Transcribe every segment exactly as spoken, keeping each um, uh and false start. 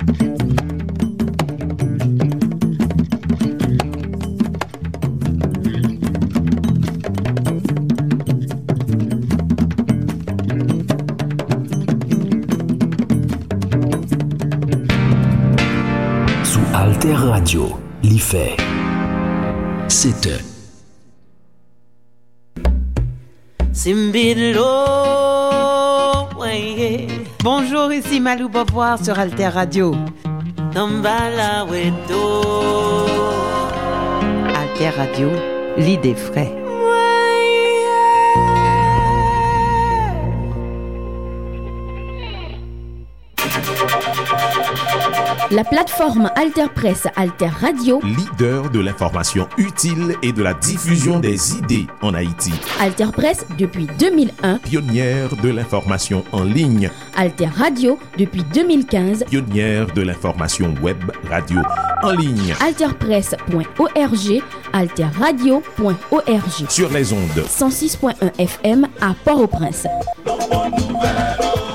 Sou Alter Radio, li fè sèt è. Bonjour, ici Malou Beauvoir sur Alter Radio. Alter Radio, lide fre. La plateforme Alter Presse, Alter Radio. Leader de l'information utile et de la diffusion des idées en Haïti. Alter Presse depuis deux mille un. Pionnière de l'information en ligne. Alter Radio depuis deux mille quinze. Pionnière de l'information web radio en ligne. Alter Presse point O R G, Alter Radio point O R G. Sur les ondes. Cent six point un F M à Port-au-Prince.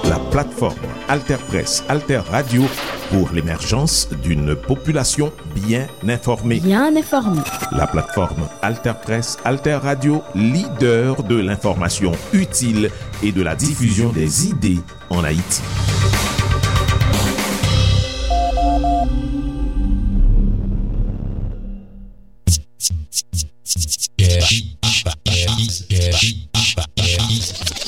La plateforme Alter Presse, Alter Radio pour l'émergence d'une population bien informée. Bien informée. La plateforme Alter Presse, Alter Radio, leader de l'information utile et de la diffusion des idées en Haïti.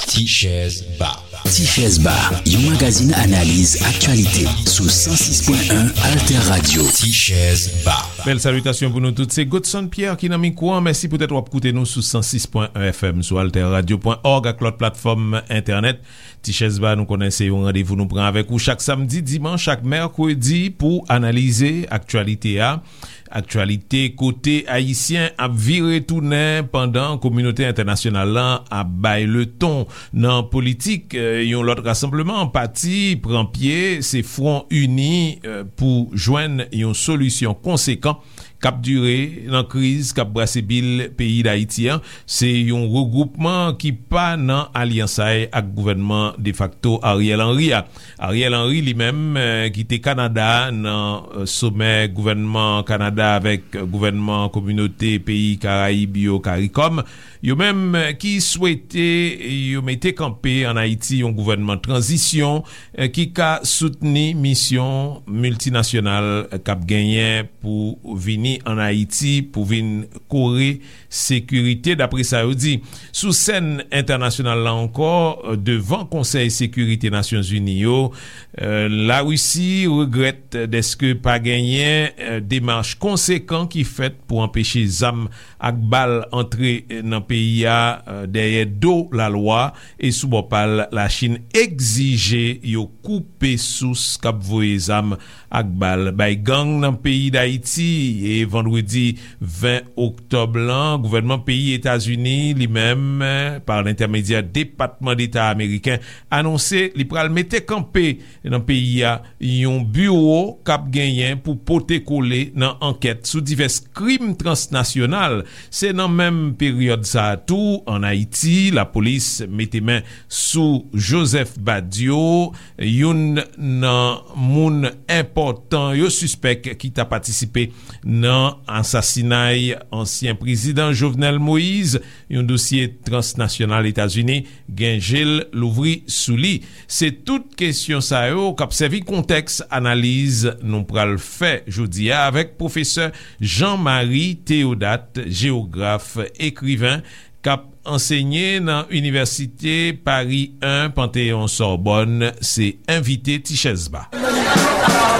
Tichèz Ba. Tichèz Ba, yon magazin analiz aktyalite sou san sis pwen en Alter Radio. Tichèz Ba. Bèl salitasyon pou nou tout. Se Godson Pierre ki nan mikwo an. Mèsi poutèt w ap koute nou sou san sis pwen en F M, sou alter radio pwen org ak lòt platfòm entènèt. Tichèz Ba, nou konnen se yon randevou nou pran avèk ou chak samdi, dimanch ak mèkredi pou analize aktyalite a. Aktyalite kote Ayisyen ap vire tounen pandan kominote entènasyonal lan ap bay leton nan politik. Eh, yon lòt rasanbleman pati pran pye, se Fwon Ini, eh, pou jwenn yon solisyon konsekan k ap dire nan kriz k ap brase bil peyi Dayiti an. Se yon regwoupman ki pa nan alyansay ak gouvènman defakto Ariel Henry a. Ariel Henry, li menm, eh, kite Kanada nan, eh, somè gouvènman Kanada avèk gouvènman kominote peyi Karayib yo, karikòm, yo menm, eh, ki swete yo mete kanpe ann Ayiti yon gouvènman tranzisyon, eh, ki ka soutni misyon miltinasyonal k ap genyen pou vini ann Ayiti pou vin kore sekirite, dapre sa yo di. Sou sèn entènasyonal la ankò, devan Konsèy Sekirite Nasyonzini yo, eh, Larisi regrèt dèske pa genyen, eh, demach konsekan ki fèt pou anpeche zam ak bal antre nan peyi a, eh, dèyè do lalwa, e sou bò pa l, Lachin egzije yo koupe sous k ap voye zam ak bal bay gang nan peyi Dayiti. E vandredi ven oktòb lan, gouvènman peyi Etazini, li menm, pa lentèmedyè Depatman Deta ameriken, anonse li pral mete kanpe nan peyi a yon biwo k ap genyen pou pote kole nan ankèt sou divès krim transnasyonal. Se nan menm peryòd sa a tou, ann Ayiti, lapolis mete men sou Joseph Badio, youn nan moun enpòtan yo sispèk ki ta patisipe nan asasinay ansyen prezidan Jovenel Moïse, yon dosye transnasyonal Etazini gen je l louvri sou li. Se tout kesyon sa yo k ap sèvi kontèks analiz nou pral fè jodi a avèk pwofesè Jean Marie Théodat, jewograf, ekriven, k ap ansenye nan Inivèsite Paris un Panthéon Sorbonne, se envite Tichèz Ba.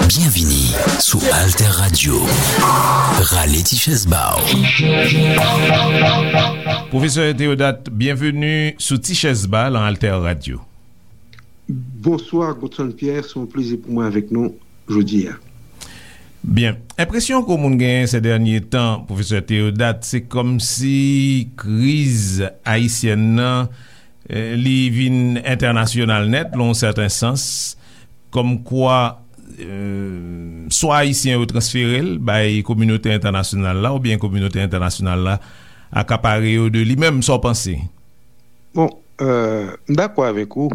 Byenvini sou Alter Radio. Rale Tichèz Ba w. Pwofesè Théodat, byenveni sou Tichèz Ba lan Alter Radio. Bonswa, Godson Pierre, se yon plezi pou mwen avèk nou jodi a. Byen. Enpresyon ke moun genyen se dènye tan, Pwofesè Théodat, se kòmsi kriz ayisyèn nan, eh, li vin entènasyonal nèt, lan yon sèten sans, kòmkwa, eh, swa Ayisyen yo transfere l bay kominote entènasyonal la, oubyen kominote entènasyonal la akapare yo de li menm. Sa w panse? Bon, euh, m dakò avèk ou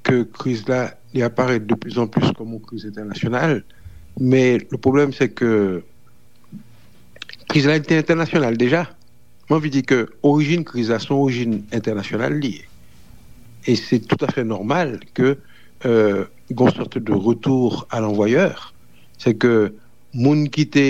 ke kriz la li aparèt de plus en plus kòm yon kriz entènasyonal, men le problème c'est que kriz la te entènasyonal deja. Mwen anvi di ke orijin kriz la se yon orijin entènasyonal li ye. E se toutafè nòmal ke euh, gon sòt de retour à l'envoyeur. Se ke moun ki te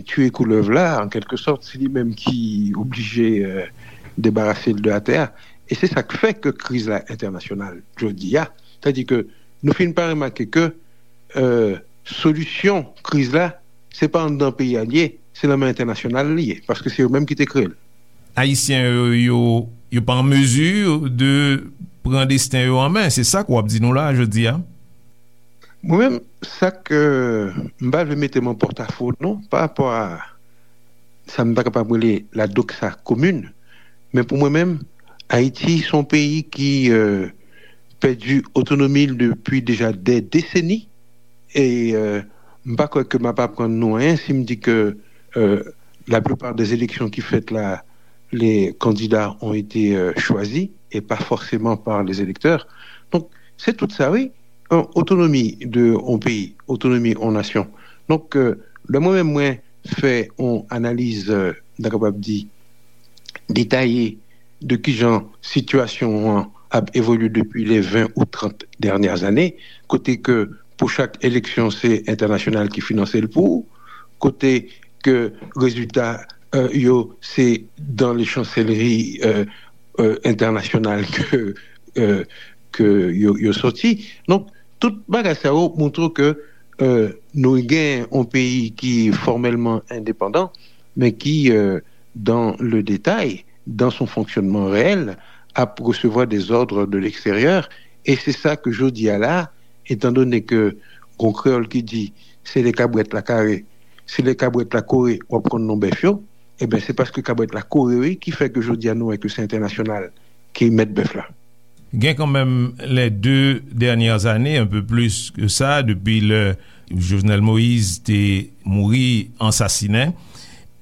tiye koulèv la, an kèlke sòt, se li menm ki oblije euh, debarase l de atè a. E se sa k fè ke kriz la entènasyonal jodi a. Sètadi ke nou fin pa remake ke euh, solisyon kriz la, se pa anndan peyi a li ye, se nan men entènasyonal li ye, paske se yo menm ki te kreye l. Ayisyen yo, yo, yo pa an mezi de pran desten yo an men. Se sa k w ap di nou la jodi a. Mwen menm, sa ke m pa vle mete m an pòtafo non, pa rapò a sa m ta kapab rele la doxa commune, men pou mwen menm, Ayiti se yon peyi ki euh, pèdi otonomi l depi deja dè deseni. E euh, m pa kwè ke m ap aprann nou anyen si m di ke euh, la plupart des élections ki fèt la, les candidats ont été euh, choisis et pas forcément par les électeurs. Donk, se tout sa, wi. Otonomi de yon peyi, otonomi yon nasyon. Donk, euh, lè mwen menm mwen fè yon analiz, euh, m ta kapab di, detaye de kijan sitiyasyon an ap evolye depi les vingt ou trente dernières années, kote ke pou chak eleksyon se entènasyonal ki finanse l pou ou, kote ke rezilta euh, yo se dans les chancelleries euh, euh, internationales que euh, que yo, yo sorti. Donc tout bagay sa yo montre que euh, nou gen yon peyi ki formèlman endepandan, men ki euh, dans le détail, dans son fonctionnement réel, ap resevwa des ordres de l'extérieur. E se sa ke jodi a la, etan done ke gon kreyòl ki di se lè kabrèt la kare, se lè kabrèt la kore w ap konn non bèf yo, ebyen se paske kabrèt la kore wi ki fè ke jodi a nou wè ke se entènasyonal ki mèt bèf la. Gen kanmenm les deux dernières années, un peu plus que ça, depi lè Jovenel Moïse te mouri ansasinen.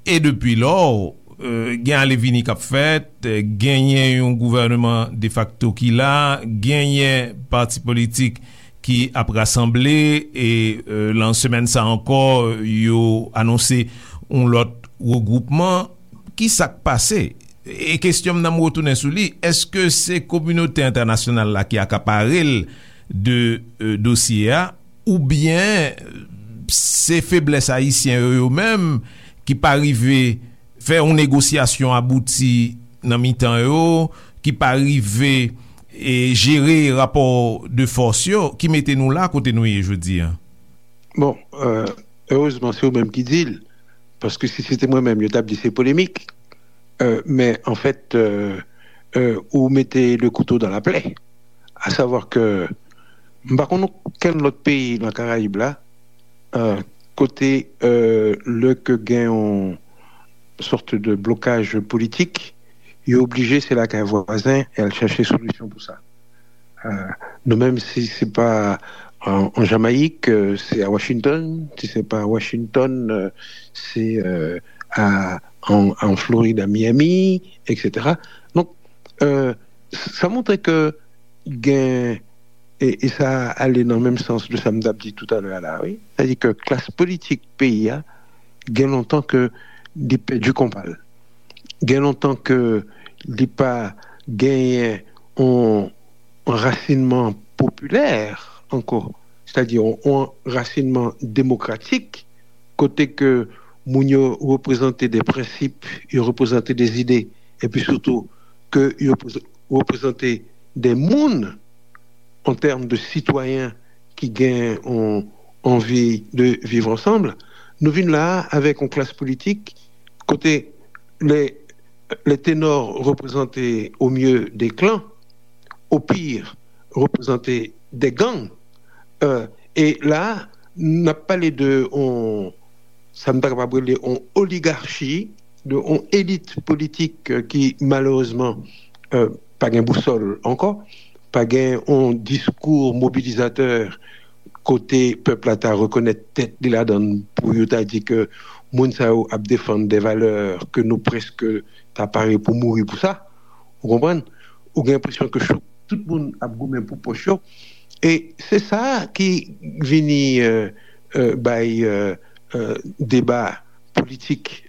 E depi lò, gen ale vini k ap fèt, genyen yon gouvèneman defakto ki la, genyen pati politik ki ap rasanble, e lan semèn sa ankò, yo anonse yon lòt regwoupman. Ki sa k pase? E kesyon m nan, m retounen sou li, èske se kominote entènasyonal la ki akapare l de dosye a, oubyen se feblès ayisyen yo, yo menm, ki pa rive fè yon negosyasyon abouti nan mitan yo, ki pa rive jere rapò de fòs yo, ki mete nou la kote nou ye jodi a? Bon, erezman se ou menm ki di l, paske si se te mwen menm, yo t ap di se polemik. Men anfèt, ou mete le couteau dans la plaie. À savoir que m pa konn okenn lòt peyi nan Karayib la kote lè ke gen yon sòt de blokaj politik, yo oblije se lakay vwazen e al chache solisyon pou sa. Nou menm, si se pa an Jamayik, se a Washington, si se pa a Washington, se a an Florid, a Miami, etsetera. Donk, sa montre ke gen, e sa ale nan menm sans de sa m t ap di toutalè a la, wi. Sètadi ke klas politik peyi a gen lontan ke li pèdi konpa l. Gen lontan ke li pa genyen yon rasinman popilè ankò, sètadi yon rasinman demokratik, kote ke moun yo reprezante de prensip, yo reprezante de zide, epi sitou ke yo reprezante de moun an tèm de sitwayen ki gen yon anvi de viv ansanm. Nou vin la avèk yon klas politik kote les, les ténors représentaient au mieux des clans, au pire représentaient des gangs. Euh, e la, n ap pale de on, sa n ta kapab rele on oligarchi, de on elit politik ki malerezman euh, pa gen bousòl ankò, pa gen on diskou mobilizatè kote pèp la ta rekonèt tèt li ladan l pou yo ta di ke moun sa yo ap defann de valè ke nou prèske ta pare pou mouri pou sa. Ou konprann? Ou gen enpresyon ke tout moun ap goumen pou pòch yo. E se sa ki vini euh, euh, bay euh, euh, deba politik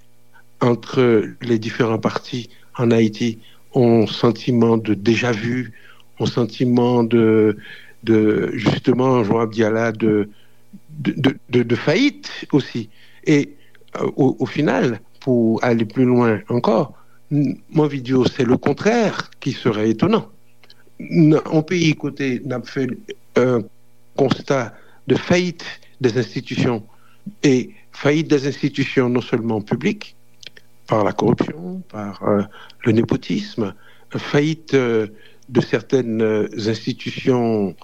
entre les différents partis en Haïti, on sentiment de déjà-vu, on sentiment de, de justement, je vois bien là, de, de, de, de, de faillite aussi. Et euh, au, au final, pour aller plus loin encore, m anvi di w, c'est le contraire qui serait étonnant. Nan yon peyi kote n ap fè un constat de faillite des institutions, et faillite des institutions non seulement publiques, par la corruption, par euh, le népotisme, faillite euh, de certaines euh, institutions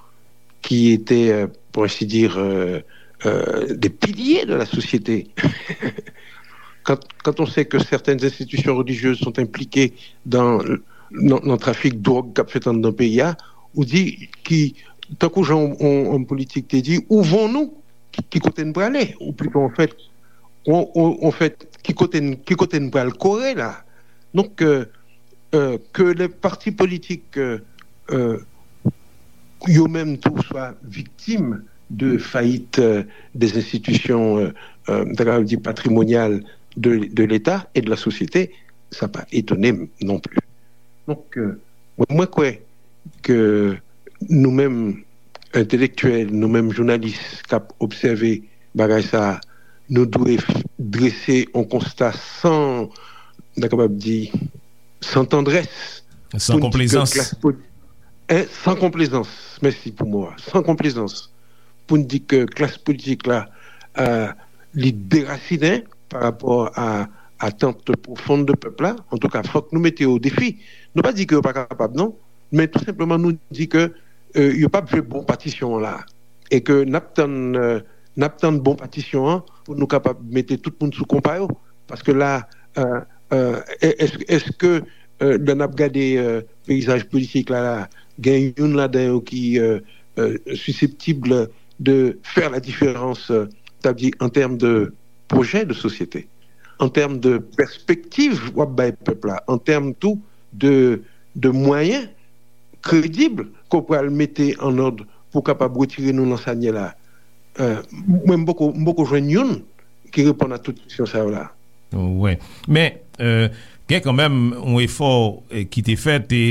qui étaient, euh, pour ainsi dire, euh, euh, des piliers de la société. Quand, quand on sait que certaines institutions religieuses sont impliquées dans, dans, dans le trafic de drogue qu'a fait dans le pays, ou dit qui, tant que gens ont, ont politique, dit, où vont-nous? Qui, qui côté nous aller? Ou plutôt, en fait, on, on, en fait, qui côté, qui côté nous aller correr là? Donc, euh, euh, que les partis politiques euh, euh, yo menm tou swa viktim de fayit euh, des institutions, euh, euh, m ta kapab di patrimonyal de, de l'État et de la société, sa pa etone m non pli. Donk, euh, mwen, mwen kwè ke nou menm entelektyèl, nou menm jounalis k ap obsève bagay sa a, nou dwe f- drese yon konsta san, m ta kapab di, san tandrès, San pou n di ke konplezans. klas poli- en, san konplezans, mèsi pou mo a, san konplezans, pou n di ke klas politik la, euh, li derasinen pa rapò a atant pwofon de pèp la. Antouka, fòk nou mete yo o defi. Nou pa di ke yo pa kapab, non, men tou senpleman nou di ke euh, yo p ap jwe bon patisyon an la. E ke n ap tann, euh, n ap tann bon patisyon an pou nou kapab mete tout moun sou konpa yo. Paske la, euh, euh, èske, èske euh, lè n ap gade euh, peyizaj politik la, la gen youn ladan yo ki euh, euh, siseptib de fè la diferans, euh, ta di an tèm de pwojè de sosyete, an tèm de pèspektiv w ap bay pèp la, an tèm tou de, de mwayen kredib ke w pral mete an òd pou w kapab retire nou nan sa n ye la. Euh, mwen, m poko, m poko jwenn youn ki reponn a tout kesyon sa yo la. Wi. Men, euh, gen kanmenm yon efò eh, ki te fèt, e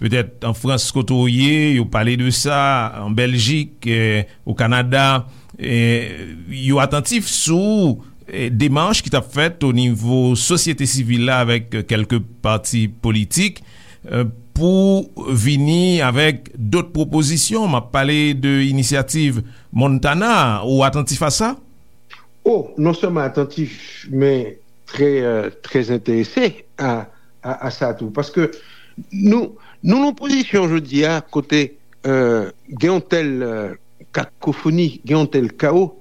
petèt an Frans kote w ye, yo pale de sa, an Bèljik, eh, o Kanada, eh, yo atantif sou eh, demach ki t ap fèt o nivo sosyete sivil la avèk eh, kèlke pati politik eh, pou vini avèk dòt pwopozisyon. M ap pale de inisyativ Montana. Ou atantif a sa? Oh, non sèlman atantif, men trè, euh, trè enterese a, a, a sa tou. Paske nou, nou nan pozisyon jodi a kote euh, gen yon tèl euh, kakofoni, gen yon tèl kawo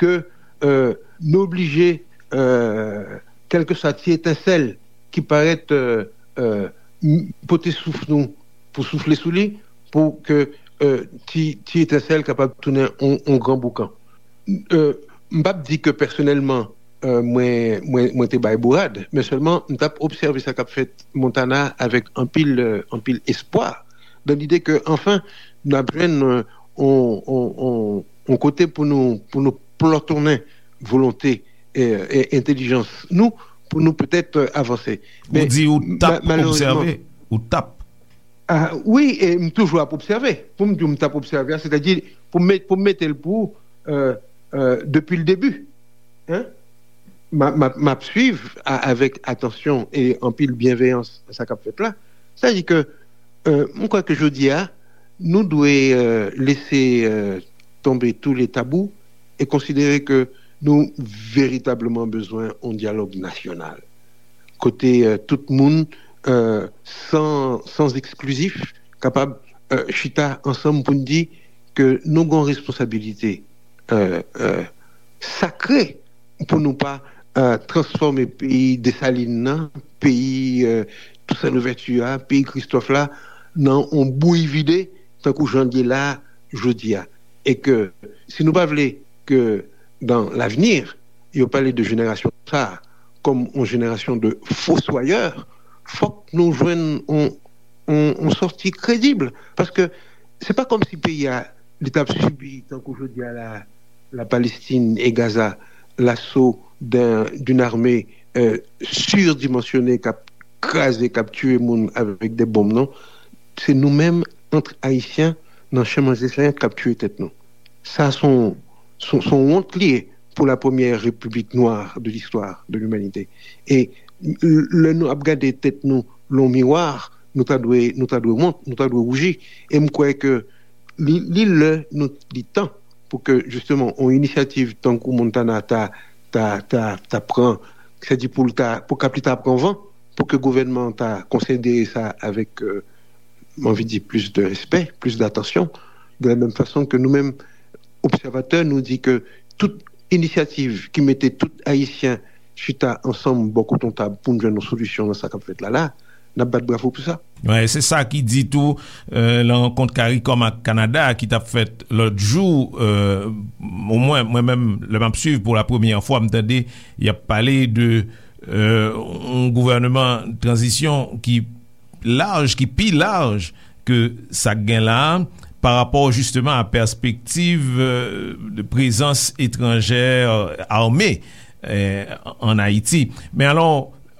ke euh, nou oblije, euh, kèlkeswa ti etensèl ki parèt euh, euh, m- pote souf nou pou soufle sou li, pou ke euh, ti, ti etensèl kapab tounen yon, yon gran boukan. Euh, m p ap di ke pèsonèlman euh, mwen, mwen, mwen te bay bourad, men sèlman m t ap obsève sa k ap fèt Montana avèk anpil, euh, anpil espwa, nan lide ke, anfen, n ap jwenn euh, on, on, on, on kote pou nou, pou nou plòtonnen volonte e, e entèlijans nou pou nou petèt euh, avanse. Ou Men di ou t ap ma- malerezman, obsève, ou t ap. Ah, wi, e m toujou ap obsève. Pou m di w m t ap obsève a, sètadi pou m met, pou m mete l pou ou, euh, euh, depi l debi. Hein? M a- m ap- m ap swiv a- avèk atansyon e anpil byenveyans sa k ap fèt la. Sètadi ke euh, m kwè ke jodi a, nou dwe euh, lese euh, tonbe tou le tabou e konsidere ke nou veritableman bezwen yon dyalòg nasyonal. Kote euh, tout moun euh, san, san eksklizif kapab euh, chita ansanm pou n di ke nou gen yon responsabilite euh, euh, sakre pou nou pa euh, transfòme peyi Desalin nan, peyi euh, Toussaint Louverture a, peyi Kristòf la, nan yon bouyi vide, tankou jan l ye la jodi a. E ke si nou pa vle ke dans l'avenir, yo pale de jenerasyon sa a kòm yon jenerasyon de foswayè, fòk nou jwenn yon, yon, yon sòti kredib. Paske se pa kòmsi peyi a li t ap sibi, tankou jodi a la, la Palestine et Gaza, l'assaut d'un, d'une armée euh, surdimensionnée k ap kraze, k ap tiye moun avèk de bonm, non. Se nou menm, ant Ayisyen, nan Chan Manje Senyè k ap tiye tèt nou. Sa se yon, se yon, se yon wont li ye pou la première république noire de l'histoire de l'humanité. E lè nou ap gade tèt nou lan miwa, nou ta dwe, nou ta dwe wont, nou ta dwe wouji. E m kwè ke li, li lè nou, li tan pou ke, jisteman, yon inisyativ tankou Montana ta, ta, ta, ta pran, sèdi pou l ta, pou Kap li ta pran van, pou ke gouvènman an ta konsidere sa avèk, euh, m anvi di, plis de respè, plis datansyon, de la menm fason ke nou menm, obsèvatè, nou di ke tout inisyativ ki mete tout Ayisyen chita ansanm bò kote yon tab pou n jwenn yon solisyon nan sa k ap fèt la la, n ap bat bravo pou sa. Wi, se sa ki di tou, euh, nan rankont CARICOM ak Kanada ki t ap fèt lòt jou, euh, omwen, mwen menm, lè m ap swiv pou la premyè fwa, m tande y ap pale de, euh, yon gouvènman tranzisyon ki laj, ki pi laj ke sa k gen la a, pa rapò jisteman a pèspektiv, euh, de prezans etranjè ame, euh, ann Ayiti. Men alò,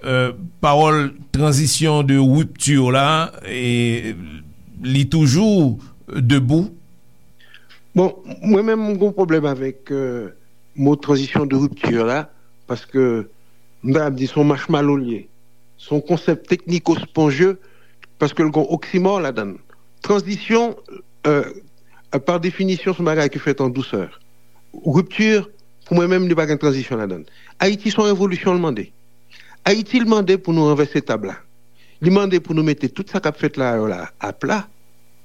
euh, pawòl tranzisyon de ripti la, e, li toujou debou? Bon, mwen menm, m gen yon pwoblèm avèk, euh, mo tranzisyon de ripti la, paske m ta ap di se yon machmalo l ye. Se yon konsèp tekniko-sponje, paske l gen oksimò ladan l. Tranzisyon, euh, pa definisyon, se yon bagay ki fèt an dousè. Ripti, pou mwen menm, li pa gen tranzisyon ladan l. Ayiti, se yon revolisyon l mande. Ayiti, l mande pou nou ranvèse tab la. Li mande pou nou mete tout sa k ap fèt la yo la apla,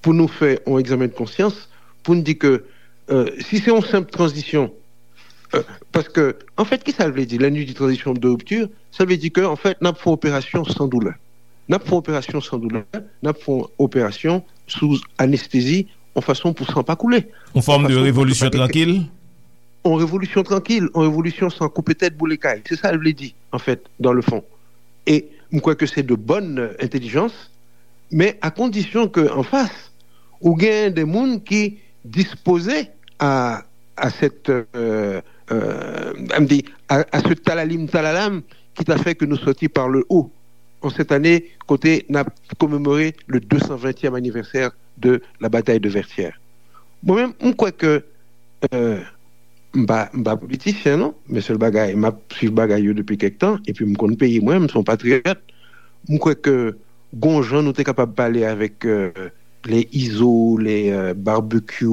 pou nou fè yon egzamen de konsyans, pou n di ke, euh, si se yon senp tranzisyon, euh, paske, anfèt, ki sa l vle di? Lè nou di tranzisyon de ripti, sa vle di ke, anfèt, n ap fè yon operasyon san doulè. N ap fè yon operasyon san doulè, n ap fè yon operasyon sou anestezi, yon fason pou san pa koule. Yon fòm de revolisyon trankil? Yon revolisyon trankil, yon revolisyon san koupe tèt, boule kay. Se sa l vle di, anfèt, dans le fond. E m kwè ke se de bòn entèlijans, men a kondisyon ke anfas, ou gen de moun ki dispoze a, a cette, euh, euh, m di, a, a ce talalim talalam ki ta fè ke nou sòti par le haut an cette année, kote n ap komemore le deux cent vingtième anniversaire de la bataille de Vertières. Mwen menm, m kwè ke, euh, m pa, m pa politisyen, non, men sèl bagay, m ap swiv bagay yo depi kèk tan, epi m konn peyi mwen, m se yon patriyòt. M kwè ke gon jan nou te kapab pale avèk, euh, les Izo, les, euh, Barbecue,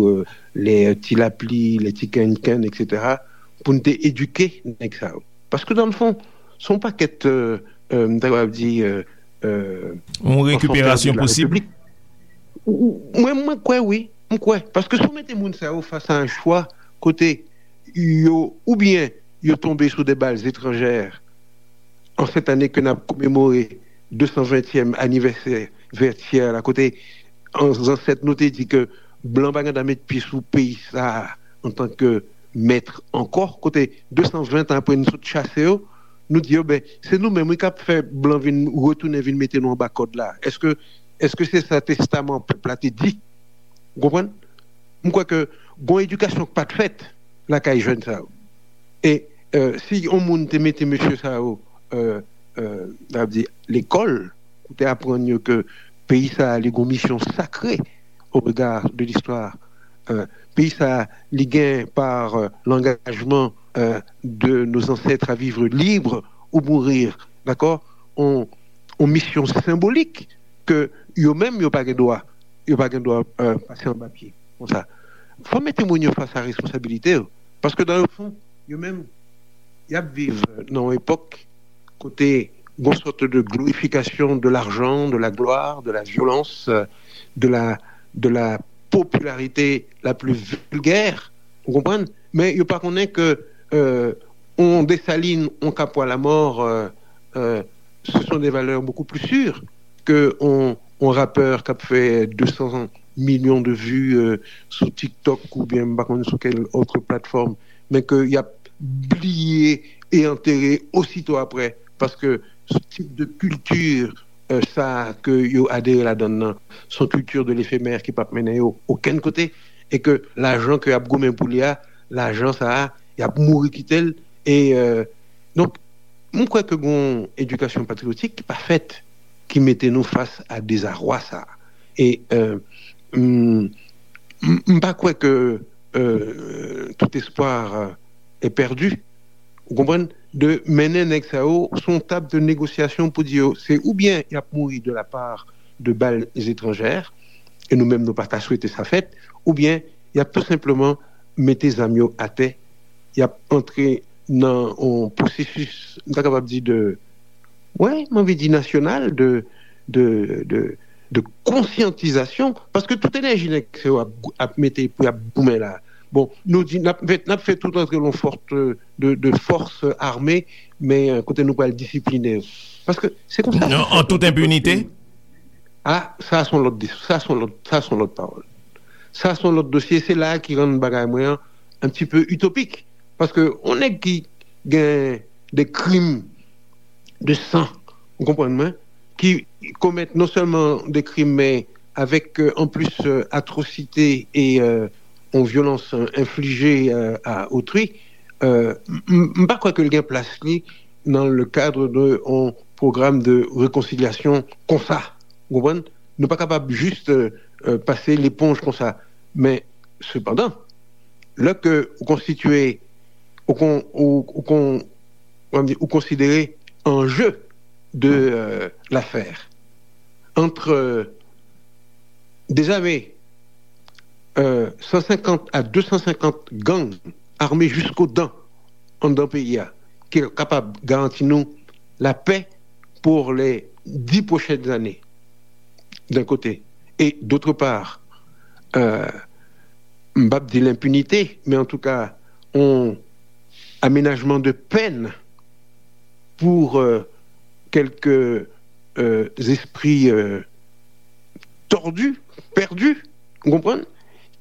euh, les, euh, Ti Lapli, les Ti Kenken, et cetera, pou n te edike nèg sa yo. Paske, dans le fond, se yon pakèt, euh, euh, m ta kapab di, euh, euh, yon rekiperasyon posib? Mwen, mwen kwè wi. M kwè. Paske si w mete moun sa yo fas a yon chwa kote yo, oubyen yo tonbe sou de bal etranjè, an cette année ke n ap komemore deux cent vingtième anniversaire Vertières la, kote an zansèt nou te di ke blan pa gen dwa met pye sou peyi sa a antanke mèt ankò, kote deux cent vingt an apre nou sot chase yo, nou di yo, ben, se nou menm wi k ap fè blan vin retounen vin mete nou anba kòd la. Èske, èske se sa testaman pèp la te di? Ou konprann? M kwè ke gon edikasyon k pa t fèt lakay jèn sa yo. E, euh, si yon moun te mete mesye sa yo, euh, euh, sa vle di lekòl, pou te aprann yo ke peyi sa a, li gon misyon sakre au regard de l'histoire. Euh, peyi sa a, li gen par, euh, l'engagement, euh, de nos ancêtres à vivre libre ou mourir, dakò? On, on misyon senbolik ke yo menm yo pa gen dwa, yo pa gen dwa, euh, pase anba pye konsa. Fò mete moun yo fas a responsabilite yo. Paske dans le fond, yo menm, y ap viv nan yon epòk kote gon sòt de glorifikasyon de lajan, de la glwa, de la vyolans, euh, de la, de la popularité la plus vulgaire, ou konprann? Men yo pa konnen ke, euh, on Desalin, on Capois la mort, euh, euh, ce sont des valeurs beaucoup plus sûres que on, on rapè k ap fè deux cents millions de vues, euh, sou TikTok oubyen m pa konn sou kèl autre plateforme, men ke y ap bliye e antere osito apre, paske tip de kilti, euh, sa ke yo adere ladan l nan, se yon kilti de l'éphémère ki p ap mennen yo okenn kote. e ke lajan ke y ap goumen pou li a, lajan sa a, y ap mouri kite l. E, euh, donk, m kwè ke gon edikasyon patriyotik ki pa fèt, ki mete nou fas a dezarwa sa a. E, euh, m, m, m pa kwè ke, euh, tout espoir, euh, est perdu. Ou konprann? De mennen nèg sa yo sou yon tab de negosyasyon pou di yo, se oubyen y ap mouri de la part de balles étrangères, e nou menm nou pa ta swete sa fèt, oubyen y ap tou senpleman mete zam yo atè, y ap antre nan yon pwosesis, m ta kapab di, de, wi, m anvi di nasyonal, de, de, de, de konsyantizasyon, paske tout enèji nèg sa yo ap, ap mete pou y ap goumen la. Bon, nou di, n ap, n ap fè tout antre yon fòs de, de fòs ame, men, euh, kote nou pral disipline yo. Paske se konsa. An tout enpinite? Ah, sa se yon lòt, sa se yon lòt, sa se yon lòt pawòl. Sa se yon lòt dosye, se la ki rann bagay mwen an un petit peu utopique. Paske yon nèg ki gen de krim de san, ou konprann mwen, ki komèt non sèlman de krim, men avèk, euh, an plis, euh, atrosite e, euh, yon vyolans, euh, enflije, euh, a otri, euh, m, m, m pa kwè ke l gen plas li nan le cadre de yon pwogram de rekonsilyasyon konsa. Ou konprann? Nou pa kapab jis, euh, euh, pase leponj konsa. Men, sepandan, lè ke ou konstitye, ou kon, ou, ou kon, kòman di, ou konsidere enjeu de, euh, l'affaire entre, euh, des armées, euh, cent cinquante à deux cent cinquante gangs armés jusqu'aux dents anndan peyi a, ki kapab garanti nou la paix pour les dix prochaines années, d'un côté. Et d'autre part, euh, m p ap di lenpinite, men an tou ka, yon amenajman de pèn pour, euh, quelques, euh, esprits, euh, tordus, perdus, ou konprann,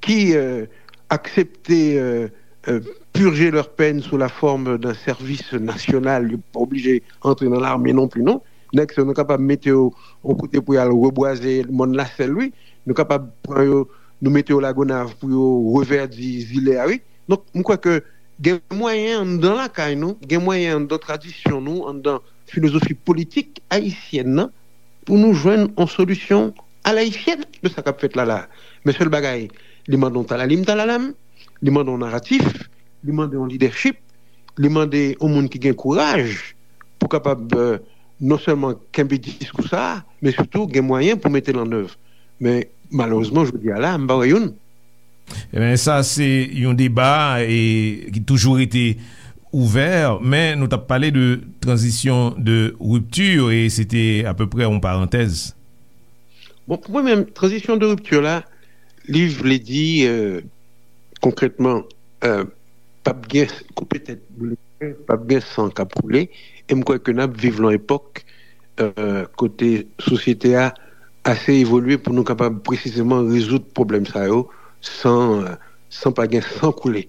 ki, euh, aksepte, euh, euh, purger leur peine sous la forme d'un service national. Yo pa oblije antre nan lame non pli, non. Nèg sa yo, nou kapab mete yo yon kote pou y al rebwaze mòn Lasèl, wi. Nou kapab pran yo, nou mete yo Lagonav pou yo revèdi zile a, wi. Donk, m kwè ke gen mwayen anndan lakay nou, gen mwayen anndan tradisyon nou, anndan filozofi politik ayisyèn nan, pou nou jwenn yon solisyon alayisyèn de sa k ap fèt la la. Men sèl bagay, li mande yon talalim talalam, li mande yon naratif, li mande yon lidèchip, li mande yon moun ki gen kouraj pou kapab, euh, non sèlman kenbe diskou sa a, men sitou gen mwayen pou mete l an èv. Men malerezman, jodi a la, m pa wè youn. Ebyen, sa se yon deba e, ki toujou rete ouvè, men nou t ap pale de tranzisyon de ripti e se te apeprè yon parantèz. Bon, pou mwen menm, tranzisyon de ripti la, li vle di, euh, konkrètman, euh, p ap gen koupe tèt boule, p ap gen san k ap koule, e m kwè ke n ap viv nan epòk, euh, kote sosyete a ase evolye pou nou kapab presizeman rezoud pwoblèm sa yo san, euh, san pa gen san koule.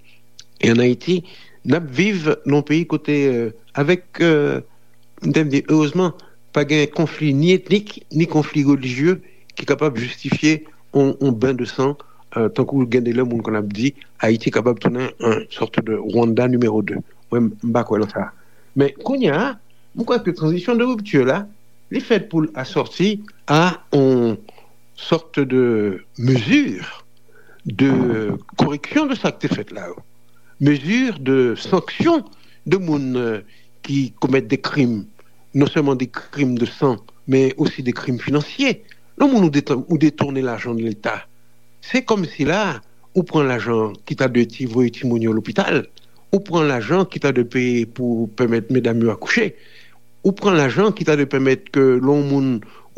E ann Ayiti, n ap viv nan yon peyi kote, euh, avèk, euh, m te di, erezman, pa gen konfli ni etnik, ni konfli relijye ki kapab jistifye yon, yon ben de san, euh, tankou gen de lè moun konn ap di, Ayiti kapab tounen yon sòt de Rwanda nimewo de. Mwen, m pa kwè nan sa. Men, kounye a, m kwè ke tranzisyon de ripti la, li fèt pou l asòti a yon sòt de mezi de koreksyon de sa k te fèt la yo. Mezi de sanksyon de moun, euh, ki komèt de krim, non sèlman de krim de san, men osi de krim finansye. Lè moun ou detan-, ou detounen lajan de Leta, se kòmsi la, ou pran lajan ki ta dwe ti voye timoun yo lopital, ou pran lajan ki ta dwe peye pou pèmèt medam yo akouche, ou pran lajan ki ta dwe pèmèt ke lè yon moun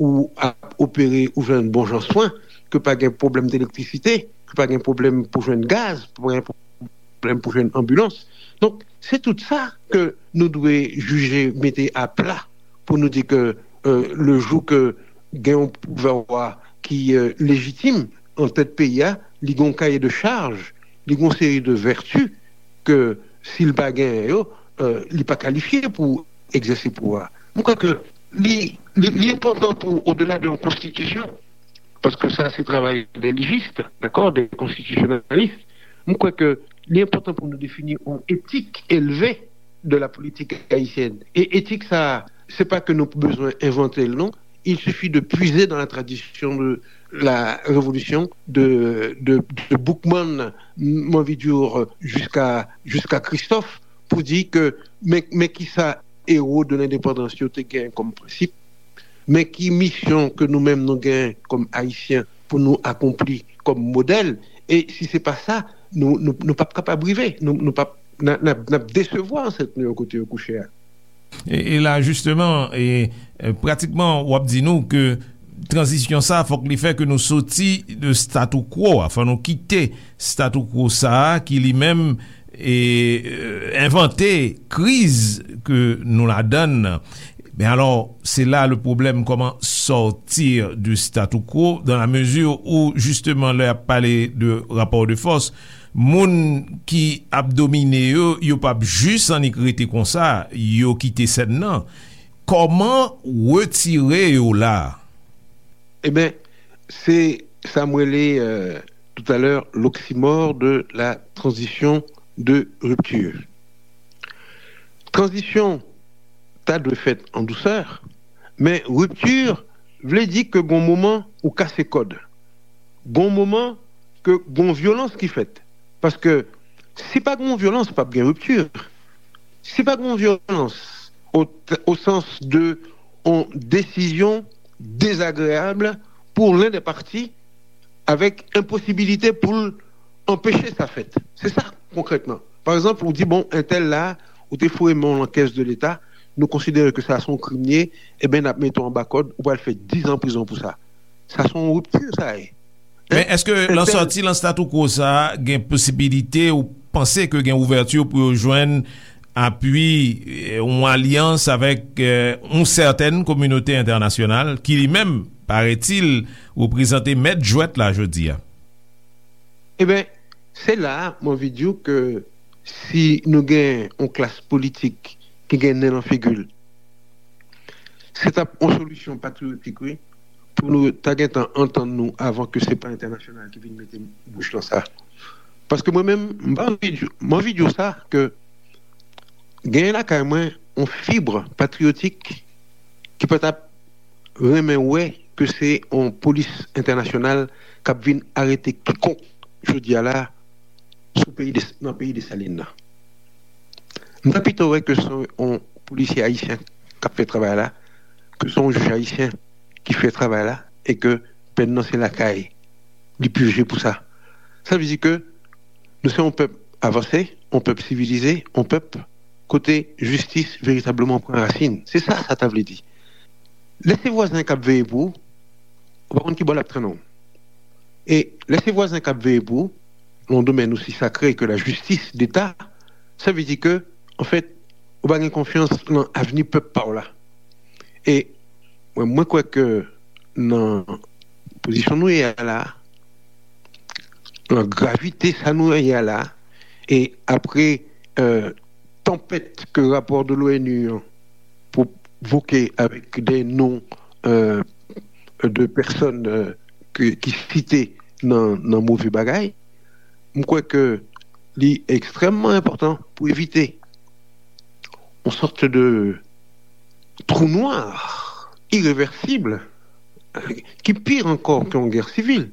ou ap opere, ou jwenn bon jan swen, ke pa gen pwoblèm elektrisite, ke pa gen pwoblèm pou jwenn gaz, pa gen pwoblèm pou jwenn anbilans. Donk, se tout sa ke nou dwe jije mete apla pou nou di ke, euh, le jou ke gen yon pouvwa ki, euh, lejitim an tèt peyi a, li gen yon kaye de chaj, li gen yon seri de vèti ke si l pa genyen yo, euh, li pa kalifye pou egzèse pouvwa. Mwen kwè ke li, li, li enpòtan pou, odela de yon konstitisyon, Paske sa se travay de lijis, dakò, de konstitisyonalis. Mwen kwè ke li enpòtan pou nou defini yon etik elve de la politik ayisyèn. E etik sa, se pa ke nou bezwen envante l, non. Il suffit de puiser dans la tradition de la révolution de, de, de Boukman, m anvi di, jiska, jiska Christophe, pou di ke men, men kisa ewo de lendepandans yo te gen kòm prensip, men ki misyon ke nou menm nou gen kòm Ayisyen pou nou akonpli kòm modèl, e si se pa sa, nou, nou, nou p ap kapab rive, nou, nou p ap, n a, n ap, n ap desevwa ansèt nou yo kote yo kouche a. E, e la, jisteman, e, e, pratikman, w ap di nou ke tranzisyon sa, fòk li fè ke nou soti de statu quo a, fò nou kite statu quo sa a ki li menm e, e, envante kriz ke nou ladann nan. Men alò, se la le problème, comment sortir du statu quo, dans la mesure où, justement, lè y ap pale de rapò de fòs, moun ki ap domine yo, yo p ap jis annik rete konsa, yo kite sèn nan. Kòman retire yo la? Eben, se sa m rele, euh, tout à l'heure, l'oxymore de la transition de rupture. Tranzisyon ta dwe fèt an dousè, men ripti vle di ke gon moman ou kase kòd. Gon moman ke gon vyolans ki fèt. Paske si pa gon vyolans, p ap gen ripti. Si pa gon vyolans, o, o sans de yon desizyon dezagreyab pou len dè pati, avèk enposibilite pou l anpeche sa fèt. Se sa, konkrètman. Pa egzanp, ou di, bon, entèl la, ou te foure men w nan kès de Leta, nou konsidere ke sa se yon krim li ye, eben, n ap mete w anba kòd, ou pral fè diz an prizon pou sa. Sa se yon ripti, sa ye. Men èske lan sòti lan statu quo sa a, gen posibilite ou panse ke gen ouvèti pou yo jwenn apui, eh, yon alyans avèk, eh, yon sètèn kominote entènasyonal ki li menm, paretil, reprezante mèt jwèt la jodi a? Eben, se la a m anvi di w ke si nou gen yon klas politik ki gen nen nan figi l, se t ap yon solisyon patriyotik, wi, pou nou ta gentan antann nou avan ke se pa entènasyonal ki vin mete bouch nan sa. Paske mwen menm, m pa anvi di, m anvi di w sa, ke genyen lakay mwen yon fib patriyotik ki pa t ap renmen wè ke se yon polis entènasyonal k ap vin arete kikonk jodi a la sou peyi de, nan peyi Desalin nan. M ta pito wè ke se yon polisye ayisyen k ap fè travay la, ke se yon jij ayisyen ki fè travay la, e ke pèn nan se lakay li pije pou sa. Sa vle di ke nou se yon pèp avanse, yon pèp sivilize, yon pèp kote jistis veritableman pran rasin. Se sa sa ta vle di. Lè se vwazen k ap veye pou ou, ou pa konn ki bò l ap trennen w. E lè se vwazen k ap veye pou ou, nan yon domèn osi sakre ke la jistis deta, sa vle di ke, anfèt, ou pa gen konfyans nan avni pèp pa w la. E mwen, mwen kwè ke nan pozisyon nou ye a la, nan gravite sa nou ye a la, e apre, euh, tanpèt ke rapò de l'ONU an pwovoke avèk de non, euh, de pèsòn, euh, ke, ki site nan, nan move bagay, m kwè ke li ekstrèmman enpòtan pou evite yon sòt de trou nwa irevèsib, ki pi ankò ke yon gè sivil,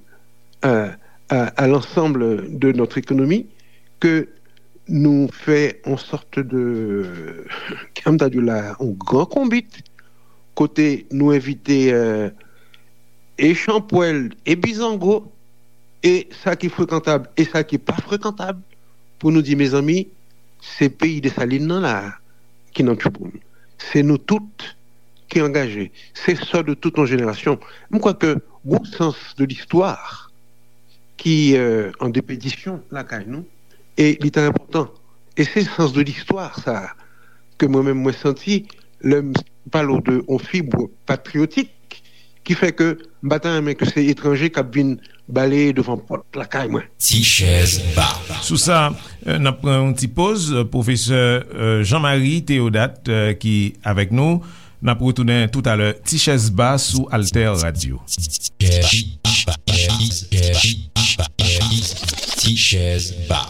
euh, à, à l'ensemble de notre économie, ke nou fè yon sòt de, kòman ta di la, yon gran konbit, kote nou envite, euh, e chanpwèl, e bizango, e sa ki frekantab, e sa ki pa frekantab, pou nou di, mezanmi, se peyi Desalin nan la a ki nan tchouboum. Se nou tout ki angaje. Se sò de tout yon jenerasyon. M kwè ke gon sans de listwa ki, euh, an depedisyon lakay nou, e li trè enpòtan. E se sans de listwa sa a ke mwen menm mwen santi lè m pale w de yon fib patriyotik ki fè ke m pa ta renmen ke se etranje k ap vin baleye devan pòt lakay mwen. Ti chèz ba. Sou sa, euh, n ap pran yon ti poz. Pwofesè, euh, Jean Marie Théodat, euh, ki avèk nou. N ap retounen toutalè. Ti chèz ba sou Alter Radio. Ti chèz Ti chèz ba.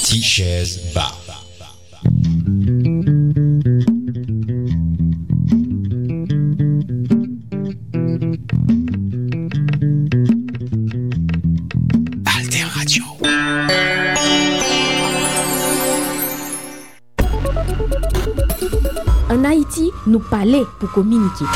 Ti chèz ba. Alter Radio. Ann Ayiti, nou pale pou kominike.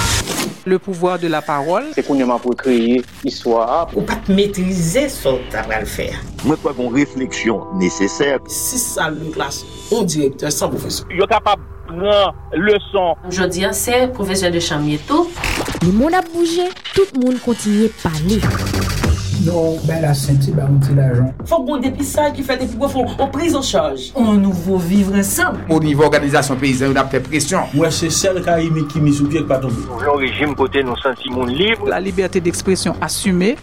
Le pouvoir de la parole. Se kounye a m ap rekreye istwa a. Ou pa t metrize sa w ta pral fè a. Mwen kwè gen yon refleksyon nesesè. Sis sal de klas, yon direktè, san pwofesè. Yo kapab pran leson. Jodi a, se pwofesè de chanm ye tou. Lemonn ap bouje, tout moun kontinye pale. Non, bay la senti, ba yon ti lajan. Fòk gon depistaj ki fèt epi pou fè yon priz an chaj. On nouvo vivre ensemble. O nivo òganizasyon peyizan yo, n ap fè presyon. Mwen se sèl Kayimik ki mi sou pye k pa tonbe. Nou vle yon rejim kote nou santi moun lib. La liberté d'expression assumée.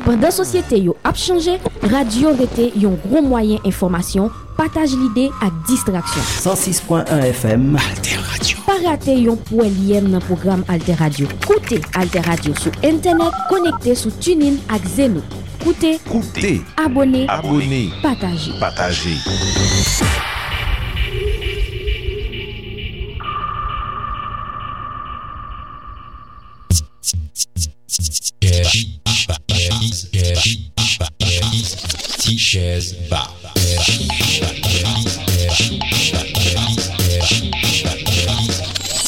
Pandan sosyete yo ap chanje, radyo rete yon gwo mwayen enfòmasyon, pataj lide ak distraksyon. San sis pwen en F M. Alter Radio. Pa rate yon pwèlyèm nan pwogram Alter Radio. Koute Alter Radio sou entènèt, konekte sou TuneIn ak Zeno. Koute, Koute. Abòne, Abòne. Pataje. Pataje. Ti chèz ba.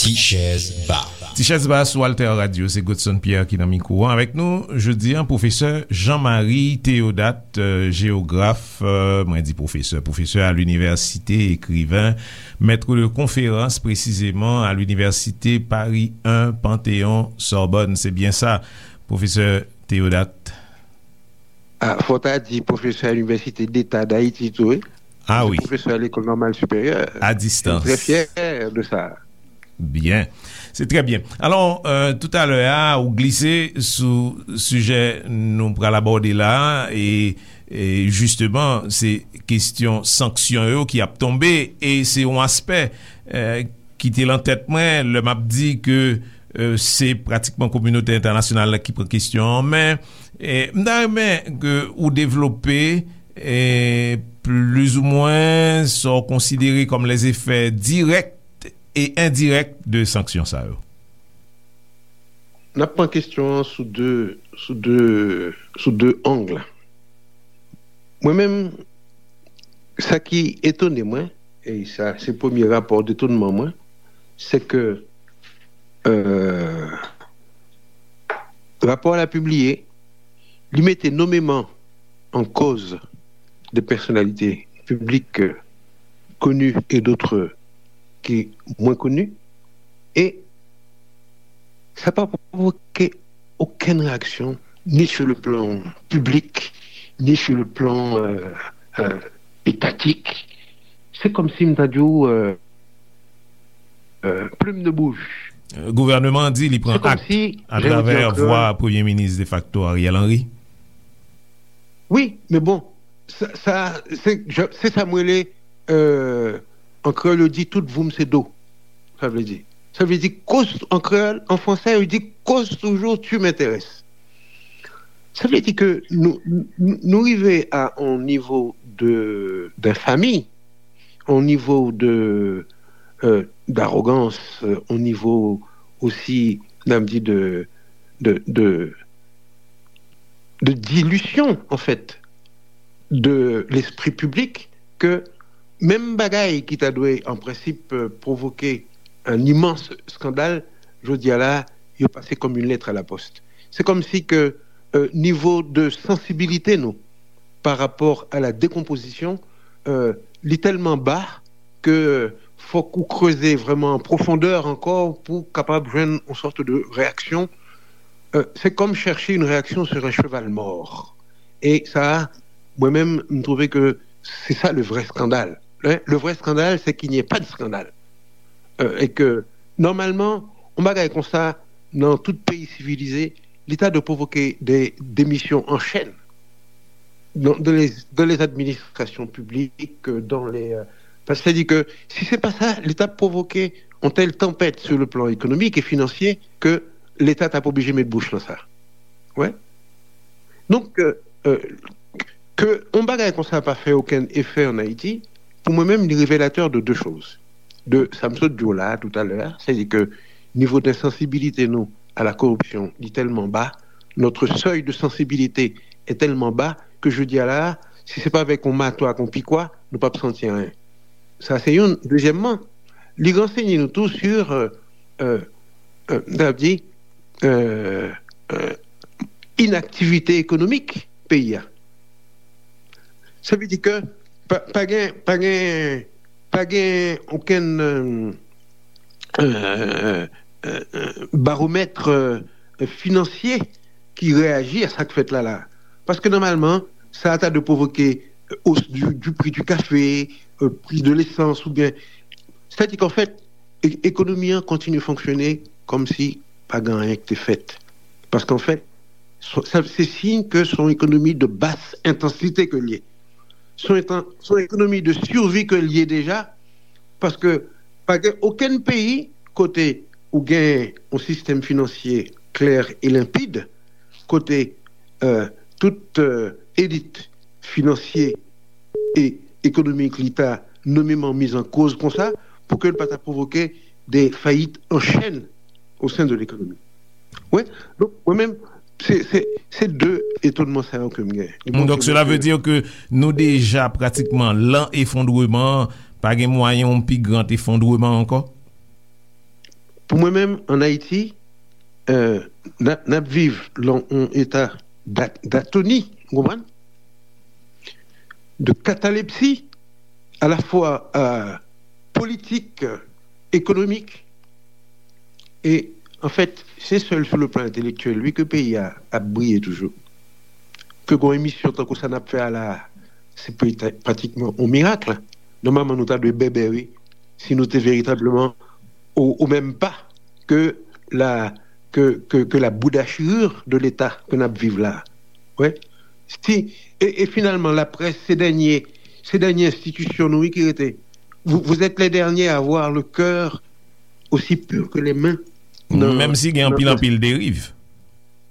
Ti chèz ba. Ti chèz ba sou Alter Radio, se Godson Pierre ki nan mikwo an avèk nou. Jodi a, pwofesè Jean Marie Théodat, euh, jewograf, euh, mwen di pwofesè, pwofesè à l'université, écrivain, maître de conférence précisément à l'université Paris un Panthéon Sorbonne. Se byen sa, pwofesè Théodat? Ah, fò ta di pwofesè à l'Université d'État d'Haïti tou, wi. Ah wi. Pwofesè à l'École Normale Supérieure. À distance. Je suis très fier de ça. Byen. Se trè byen. Alò, euh, toutalè a, ou glise sou sijè nou pral abòde la, e, e jisteman, se kesyon sanksyon yo ki ap tonbe, e se yon aspè, euh, ki te lan tèt mwen, lè m ap di ke, euh, se pratikman kominote entènasyonal la ki pran kesyon an men, e m ta renmen ke ou devlope, e plizoumwen sa w konsidere kòm lèzefè dirèk e endirèk de sanksyon sa yo? N ap pran kesyon an sou de, sou de, sou de ang. Mwen menm, sa ki etone mwen, e sa se premye rapò detonman mwen, se ke, euh, rapò a pibliye, li mete nomeman an koz de pèsonalite piblik, euh, koni e dot ki mwen koni, e sa pa pwovoke okenn reyaksyon, ni sur le plan piblik, ni sur le plan, euh, euh, etatik. Se kòmsi m ta di w, euh, euh, plume de bouche. Euh, gouvènman an di li pran ak atravè vwa premye minis defakto Ariel Henry. Wi, men bon, sa, sa, se, se sa m rele, euh, an kreyòl yo di tout voum se do. Sa vle di, sa vle di koz, an kreyòl, an fransè, yo di koz toujou tu m'intéresses. Sa vle di ke nou, nou, nou rive a yon nivo de, d'infamie, yon nivo de, euh, d'arogans, euh, yon nivo osi, n ap di, de, de, de, de dilution, en fait, de l'esprit public, ke menm bagay ki ta dwe, an prensip, euh, pwovoke un immense scandale, jodi a la, yo pase comme une lettre à la poste. Se kòmsi ke, euh, nivo de sansibilite nou pa rapò a la dekonpozisyon, euh, li tèlman ba ke fòk ou kreze vrèman an pwofondè ankò pou kapab jwenn yon sòt de reyaksyon. Euh, c'est comme chercher une réaction sur un cheval mort. E sa, mwen menm, m twouve ke se sa le vrai scandale. Hein? Le vrai scandale, c'est qu'il n'y ait pas de scandale. Euh, e ke, nòmalman, yon bagay konsa, nan tout peyi sivilize, li ta dwe pwovoke de demisyon an chèn dans, dans les, dans les administrations publiques, euh, dans les, euh, Sètadi ke si se pa sa, li t ap pwovoke yon tèl tanpèt sou le plan ekonomik e finansye ke Leta t ap oblije met bouch nan sa. Wè. Donk, euh, euh, ke yon bagay konsa pa fè okenn efè an Ayiti, pou mwen menm, li revelatè de de choz. De sa m sot di w la toutalè a, sètadi ke nivo de sansibilite nou a la koripsyon, li tèlman ba, notre seuil de sensibilité est tellement bas que jodi a la, si se pa avèk yon mato ak yon pikwa, nou p ap santi anyen. Sa se youn. Dezyèmman, li ransenye nou tou sur, euh, euh, euh, n ap di, euh, euh, inaktivite ekonomik peyi a. Sa vle di ke pa, pa gen, pa gen, pa gen okenn, euh, euh, euh, euh, baromèt, euh, finansye ki reyaji a sa k fèt la la. Paske nòmalman, sa ta dwe pwovoke, euh, hausse du, du prix du café, euh, prix de l'essence, oubyen, sètadi ke an fèt, e- ekonomi an kontinye fonksyone kòmsi pa gen anyen ki te fèt. Paske an fèt, se se siy ke se yon ekonomi de basse intensité ke l ye. Se yon, se yon ekonomi de survie ke l ye deja, paske pa gen okenn peyi kote ou gen yon sistèm finansye klè e lenpid, kote, euh, tout, euh, elit finansye e ekonomik li ta nomeman miz an koz konsa, pou ke l pa ta pwovoke de fayit an chèn o sen de lekonomi. Wi, donk, mwen menm, se, se, se de etonnman sa yo ke m gen. Li montre nou ke nou deja pratikman lan efondreman, pa gen mwayen yon pi gran efondreman ankò? Pou mwen menm, an Ayiti, euh, n ap, n ap viv lan yon eta d'a- d'atoni, ou konprann? De catalepsie, à la fois, euh, politique, économique, e, an fèt, se sèl sou le plan entèlektyèl, wi, ke peyi a ap briye toujou. Ke gon emisyon tankou sa n ap fè a la, se peta- pratikman yon mirak. Nòmalman, nou ta dwe bèbè, wi, si nou te veritableman au, au même pas que la, que, que, que la boudachirure de l'État ke n ap viv la. Wi. Si, e, e finalman, laprès, se dènye, se dènye enstitisyon nou, wi, ki rete. Vous, vous êtes les derniers à avoir le cœur aussi pur que les mains. Menm si gen anpil, anpil deriv.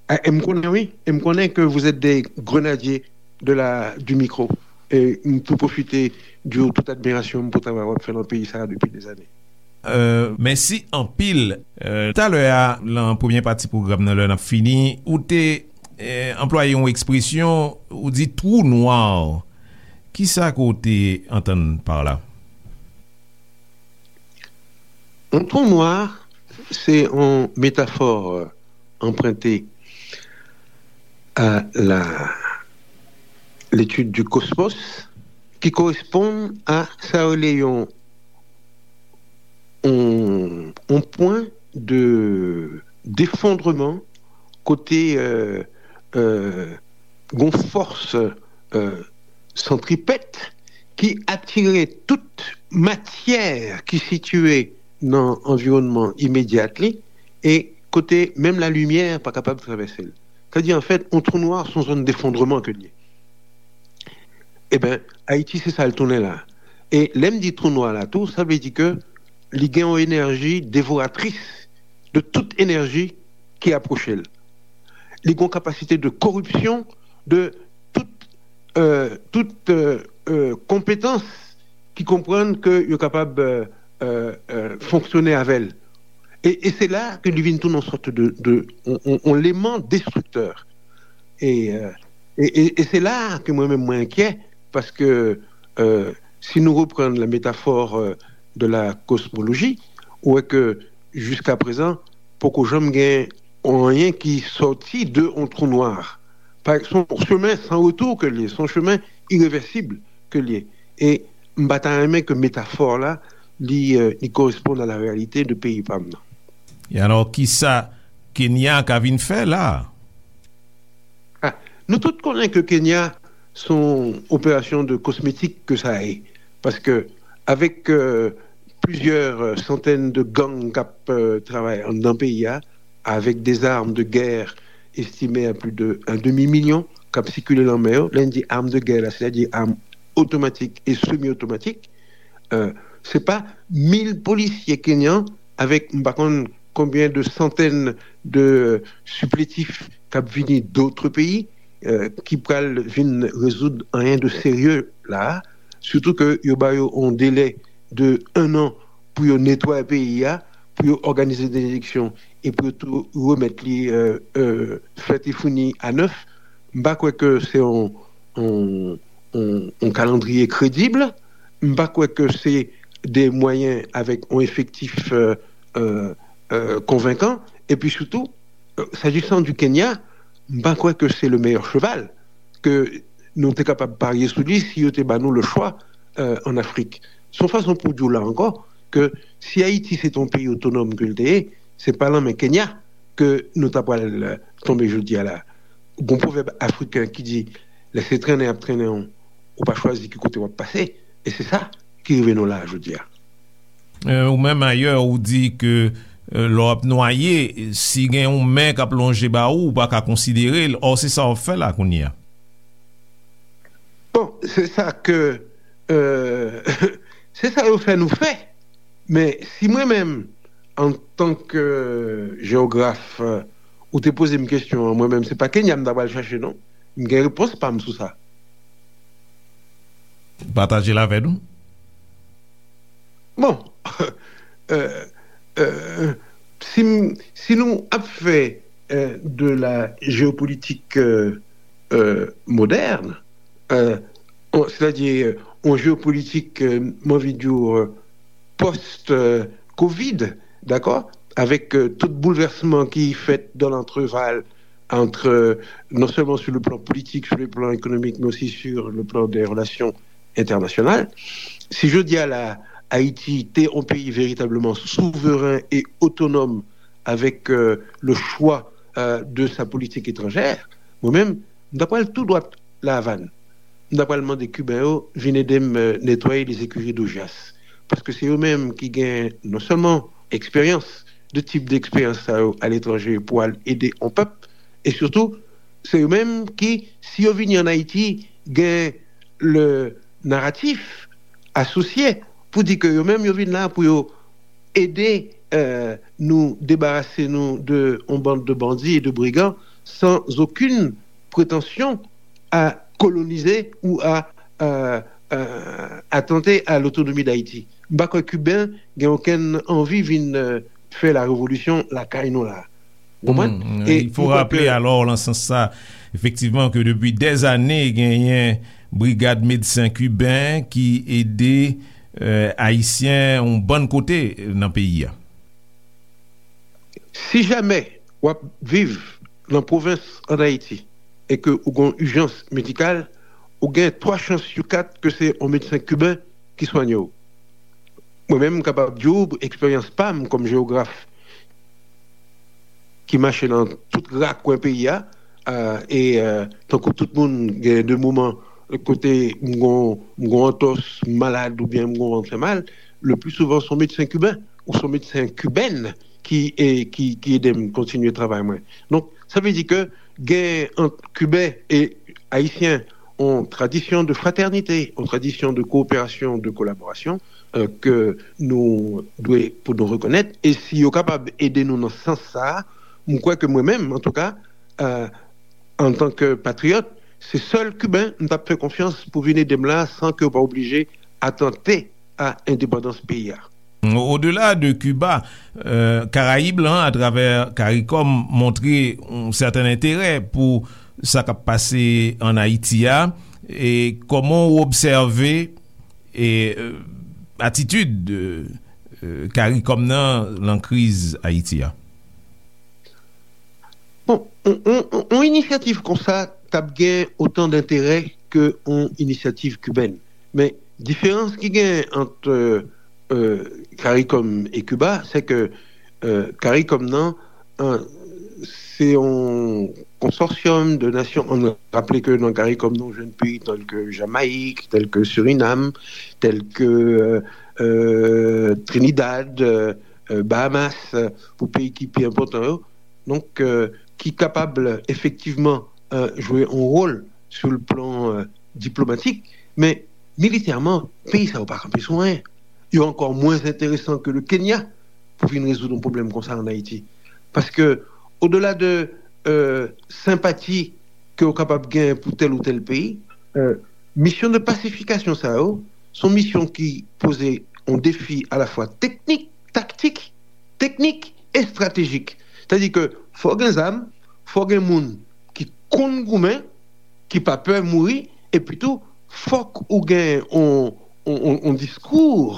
Ah, e m konnen, wi. E m konnen que vous êtes des grenadiers de la, du micro. E m tou pwofite di w tout admirasyon m pou travay w ap fè nan peyi sa a depi dèzane. Euh, mèsi anpil. Euh, talè a, lan premye pati pwogram nan, lè n ap fini, ou te, euh, anplwaye yon ekspresyon, ou di twou nwa. Kisa ke w te antann pa la? Yon twou nwa, se yon metafò, euh, anprente a la, l'étude du cosmos, ki koresponn a sa yo rele yon, yon, yon pwen de, d'effondrement kote, euh, euh, gon fòs, euh, santripèt ki atire tout matyè ki sitiye nan anviwònman imedyat li, e kote menm lalimyè pa kapab travèse l. Sètadi, an fèt, yon twou nwa se yon zòn defondreman ke l ye. Eben, Ayiti, se sa l tounen la. E lè m di twou nwa la tou, sa vle di ke li gen yon enèji devoratris de tout enèji ki apwoche l. Li gen yon kapasite de koripsyon de tout, euh, tout, euh, euh, konpetans ki konprann ke yo kapab, euh, euh, euh, fonksyone avè l. E, e se la ke li vin tounen yon sòt de, de, yon, yon, yon eleman destriktè. E, euh, e, e, e se la ke mwen menm mwen enkyè, paske, euh, si nou reprann la métaphore, euh, de la cosmologie, ou wè ke jiska prezan, poko janm gen anyen ki sòti de yon twou nwa. Pa, se yon chemen san retou ke l ye, se yon chemen irevèsib ke l ye. E m pa ta renmen ke metafò la, li, euh, li koresponn a la reyalite de peyi pa m nan. E alò, kisa Kenya ka vin fè la? Ah, nou tout konnen ke Kenya se yon operasyon de kosmetik ke sa ye. Paske avèk, euh, plizyè, euh, santèn de gang k ap, euh, travay anndan peyi a, avèk des armes de guerre estimées à plus de un demi-million k ap sikile lan men yo. Lè n di arm de guerre la, sètadi arm otomatik e semi otomatik. Euh, se pa mil polisye kenyan avèk m pa konn konbyen de santèn de sipletif k ap vini dòt peyi, euh, ki pral vin rezoud anyen de serye la a. Sitou ke yo ba yo yon delè de enn an pou yo netwaye peyi a, pou yo òganize de eleksyon e pou yo tou remèt li, euh, euh, fèt e founi a nèf. M pa kwè ke se yon, yon, yon, yon kalandriye kredib. M pa kwè ke se de mwayen avèk yon efektif, euh, euh, euh, konvenkan. Epi sitou, euh, s'agissant du Kenya, m pa kwè ke se le meilleur cheval ke nou te kapab parye sou li si yo te ba nou le chwa, euh, ann Afrik. Se yon fason pou di w la ankò ke si Ayiti se te yon peyi otonòm ke l te ye, se pa nan men Kenya ke nou ta pral, euh, tonbe jodi a la. Gon pwovèb afriken ki di, lè se trennen y ap trennen w, ou pa chwazi ki kote w ap pase. E se sa ki rive nou la a jodi a. Euh, ou menm ayè, ou di ke, euh, lè w ap nwaye, si gen yon men k ap lonje ba ou, ou pa ka konsidere l. Ò, se sa w ap fè la kounye a. Bon, se sa ke, euh, se sa yo fè nou fè. Men si mwen menm, antan ke jewograf, euh, ou te poze m kesyon an, mwen menm, se pa Kenya m ta pral chache, non. M gen repons pa m sou sa. Pataje l avè nou. Bon, euh, euh, si, m- si nou ap fè, euh, de la géopolitique, euh, euh, moderne, euh, on- c'est-à-dire, euh, on géopolitique, euh, m anvi di w, euh, post, euh, Covid, dakò, avèk, euh, tout boulvèsman ki fèt dans l'entrevalle entre, euh, non seulement sur le plan politique, sur le plan économique, mais aussi sur le plan des relations internationales. Si jodi a la, Ayiti te yon peyi veritableman souveren e otonòm avèk, euh, le choix, euh, de sa politique étrangère, mwen menm, m ta pral tou dwat La Havane. M ta pral mande Kiben yo vin ede m, euh, netwaye les écuries d'Augias. Paske se yo menm ki gen non sèlman eksperyans, de tip d'eksperyans sa yo aletranje pou al ede yon pèp. E sitou, se yo menm ki, si yo vini ann Ayiti, gen le naratif asosye pou di ke yo menm yo vin la pou yo ede, euh, nou debarase nou de yon band de bandits et de brigands sans aucune prétention à coloniser ou à, euh, euh, attenter à l'autonomie d'Haïti. M pa kwè Kiben gen okenn anvi vin, euh, fè la revolisyon lakay nou la. Ou konprann? Mm, e il faut rappeler alors nan sans sa, efektivman, ke depi dèzane genyen brigad medsen kiben ki ede, euh, ayisyen yon bann kote nan peyi a. Si jamè w ap viv nan pwovens ann Ayiti e ke ou gen yon ijans medikal, ou gen twa chans sou kat ke se yon medsen kiben ki swanye w. Mwen menm, m kapab di w eksperyans pa m kòm jewograf ki mache nan tout rakwen peyi a, euh, e, euh, tankou tout moun, gen de moman kote m gon, m gon antòs, m malad oubyen m gon vant fè mal, le pli souvan se yon medsen kiben ou se yon medsen kibèn ki, e, ki, ki ede m kontinye travay mwen. Donk, sa vle di ke gen ant Kiben e Ayisyen yon tradisyon de fratènite, yon tradisyon de kowoperasyon, de kolaborasyon, euh, ke nou dwe pou nou rekonèt. E si yo kapab ede nou nan sans sa a, m kwè ke mwen menm, antouka, euh, antan ke patriyòt, se sèl Kiben m t ap fè konfyans pou vin ede m la san ke yo pa oblije atante a endepandans peyi a. Au-delà de Cuba, euh, Karayib lan, atravè CARICOM, montre yon sèten enterè pou sa k ap pase ann Ayiti a. E kòman w obsève e, euh, atitid, euh, euh, CARICOM nan lan kriz Ayiti a? Bon, yon, yon, yon, yon inisyativ konsa t ap gen otan denterè ke yon inisyativ kibèn. Men, diferans ki gen ant, euh, euh, CARICOM e Kiba, se ke, euh, CARICOM nan, euh, se yon konsòsyòm de nasyon. Ann raple ke nan CARICOM nan, ou jwenn peyi tèl ke Jamayik, tèl ke Sirinam, tèl ke, euh, euh, Trinidad, euh, euh, Bahamas, euh, pou peyi ki pi enpòtan yo. Donk, euh, ki kapab efektivman, euh, jwe yon wòl sou le plan, euh, diplomatik, men militèman, peyi sa yo pa kanpe sou anyen. yo ankò mwens enteresan ke le Kenya pou vin rezoud yon pwoblèm konsa ann Ayiti. Paske, odela de euh, senpati ke w kapab gen pou tèl ou tèl peyi, euh, misyon de pasifikasyon sa yo, se yon misyon ki poze yon defi alafwa teknik, taktik, teknik e estratejik. Sètadi ke fò w gen zam, fò w gen moun ki konn goumen, ki pa pè mouri, epi tou, fòk ou gen yon, yon, yon, yon diskou,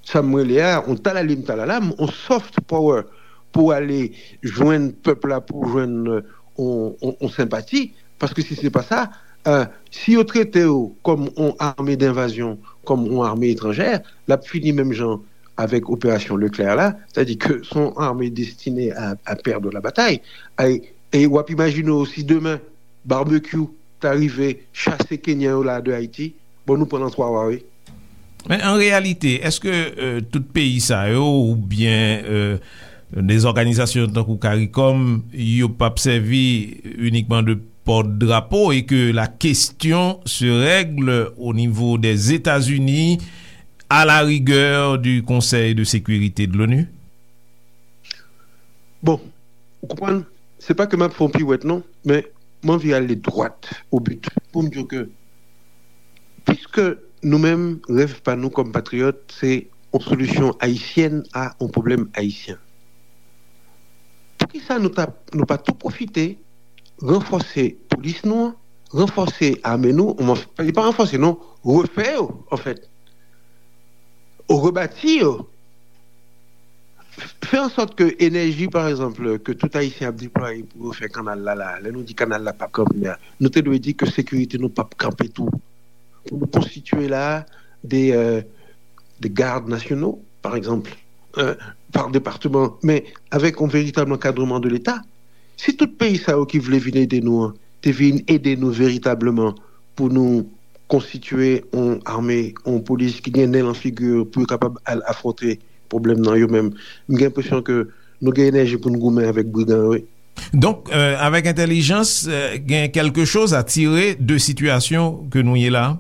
sa m rele a, yon talalim talalam, yon soft power, pou ale jwenn pèp la, pou jwenn euh, yon, yon, yon senpati, paske si se pa sa, euh, si yo trete w kòm yon ame denvazyon, kòm yon ame etranjè, l ap fini menm jan avèk operasyon Leclerc la, sètadi ke se yon ame destine a, a perdre la bataille. E, e w ap imajine w si demen Barbecue ta rive chase Kenyan yo la de Ayiti, bon, nou pran nan twa wa, wi. Men an reyalite, èske euh, tout peyi sa yo oubyen euh, de zòganizasyon tankou CARICOM, yo p ap sèvi inikman de pòt drapo e ke la question se règle au niveau des États-Unis, à la rigueur du Conseil de sécurité de l'ONU? Bon, ou konprann, se pa ke m ap fè yon piwèt non, men m anvi ale dwat o but pou m di w ke piske nou menm, rèv pa nou kòm patriyòt, se yon solisyon ayisyèn a yon pwoblèm ayisyen. Poukisa nou ta, nou pa tou pwofite ranfòse polis nou an, ranfòse ame nou, li pa ranfòse non, refè yo, anfèt, rebati yo, fè an sòt ke enèji, pa egzanp, ke tout Ayisyen ap deplwaye pou yo fè kanal la, la, lè nou di kanal la p ap kanpe a, nou te dwe di ke sekirite nou p ap kanpe tou. Pou nou konstitye la de, euh, de gad nasyonal, pa egzanp, euh, pa depatman, men avèk yon veritab ankadreman de Leta. Si tout peyi sa yo ki vle vin ede nou an te vin ede nou veritabman pou nou konstitye yon ame, yon polis ki gen nen lan figi pou yo kapab al afwonte pwoblèm nan yo menm. M gen enpresyon ke nou gen enèji pou n goumen avèk brigan yo, wi. Donk, euh, avèk entèlijans, euh, gen quelque chose à tirer de situation que nou ye la?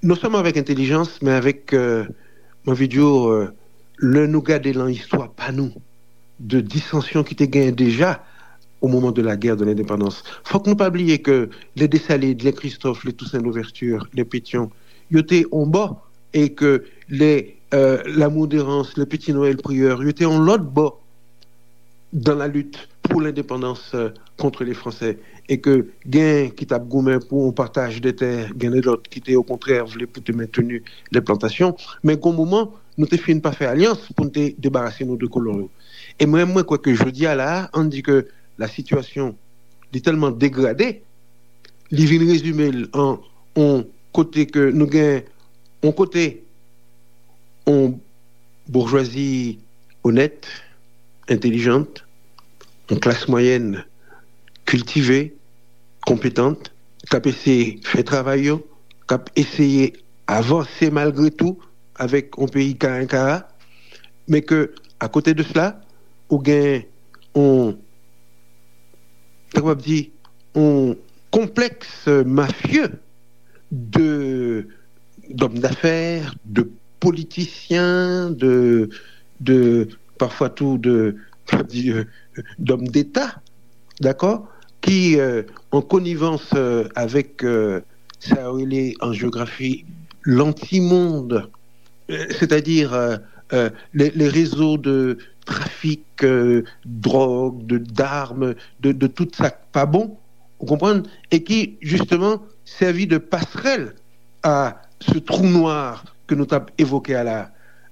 Non sèlman avèk entèlijans, men avèk, euh, m anvi di w, euh, lè nou gade lan istwa pa nou, de disansyon ki te genyen deja au moment de la guerre de l'indépendance. Fòk nou pa bliye ke les Dessalines, les Christophe, les Toussaint Louverture, les Pétion, yo te yon bò, e ke les, euh, Lamour Dérance, les Petit Noël Prieur, yo te yon lòt bò dans la lutte pour l'indépendance, euh, contre les Français, e ke gen ki t ap goumen pou yon pataj de tè, gen de lòt ki te okontrè vle pou te mentni les plantations, men gon moman, nou te fin pa fè alyans pou n te debarase nou de kolon yo. E mwen, mwen kwè ke jodi a la, ann di ke la sitiyasyon li tèlman degrade, li vin rezime l an yon kote ke nou gen yon kote yon boujwazi onèt, entèlijant, yon klas mwayèn kiltive, konpetan, k ap eseye fè travay yo, k ap eseye avanse malgre tou avèk yon peyi karenkara, men ke akote de sela, ou gen yon, ta kapab di, yon konplèks mafye de d'hommes d'affaires, de politiciens, de, de parfois tout de, d'hommes d'État, d'accord, qui, euh, en connivence euh, avec euh, sa yo rele an jewografi l'antimonde, euh, c'est-à-dire euh, euh, les, les réseaux de trafic euh, drogue, de d'armes, de, de tout sa k pa bon, ou konprann, e ki, jisteman, sèvi de passerelle à ce trou noir ke nou t ap evoke a la.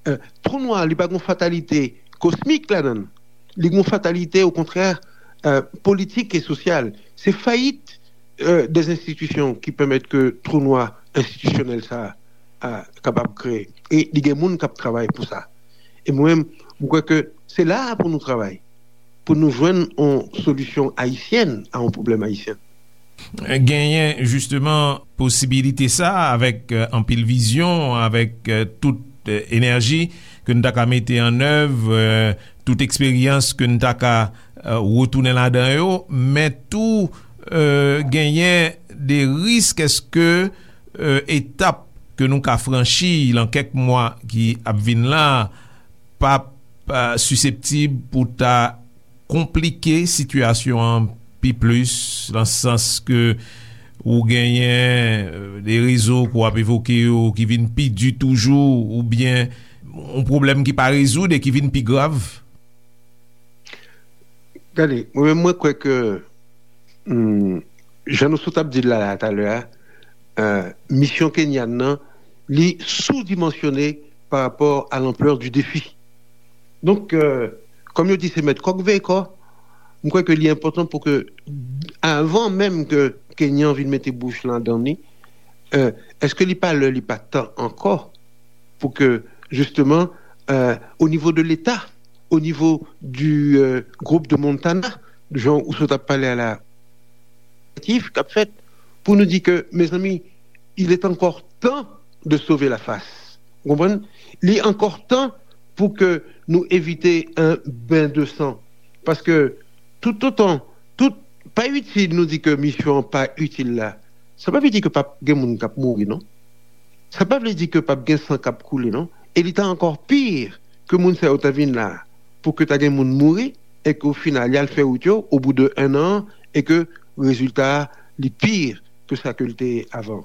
Euh, trou noir, li pa gon fatalite kosmik ladan l. Li gon fatalite, okontrè, euh, politik e sosyal. Se fayit euh, des institutions ki pèmèt ke trou nwa enstitisyonèl sa a kapab kreye. E li gen moun k ap travay pou sa. E mwen menm, m kwè ke se la a pou nou travay, pou nou jwenn yon solisyon ayisyèn a yon pwoblèm ayisyen. Genyen jisteman posibilite sa avèk euh, anpil vizyon, avèk euh, tout euh, enèji ke n ta ka mete an èv, euh, tout eksperyans ke n ta ka euh, retounen ladan yo, men tou euh, genyen de risk èske euh, etap ke nou ka franchi lan kèk mwa ki ap vin la p ap, eh, siseptib pou ta konplike sitiyasyon an pi plis, lan sans ke ou genyen, eh, de rezo ke w ap evoke yo ki vin pi di toujou, oubyen yon pwoblèm ki pa rezoud e ki vin pi grav? Gade, mwen menm, mwen kwè ke, hmm, jan nou sot ap di l la, la talè a, eh, misyon kenyan nan, li sou-dimansyone pa rapò a lanplè di defi. Donk, eh, kòm yo di, se mèt kòk veye kò, m kwè ke li enpòtan pou ke, avan menm ke kenyan vin mete bouch ladan li, eh, èske li pa lè, li pa tan ankò pou ke, jisteman, eh, o nivo de Leta, o nivo di, eh, gwoup de Montana, jan ou sot ap pale a la, k ap fèt, pou nou di ke, mezanmi, il est encore temps de sauver la face. Ou konprann? Li ankò tan pou ke nou evite un bain de sang. Paske toutotan, tout, pa itil nou di ke misyon an pa itil la, sa pa vle di ke p ap gen moun k ap mouri, non. Sa pa vle di ke p ap gen san k ap koule, non. E li ta ankò pi ke moun sa yo ta vin la pou ke ta gen moun mouri e ke o final, y al fè wout yo, o bout de en an, e ke rezilta a, li pi ke sa ke l te ye avan.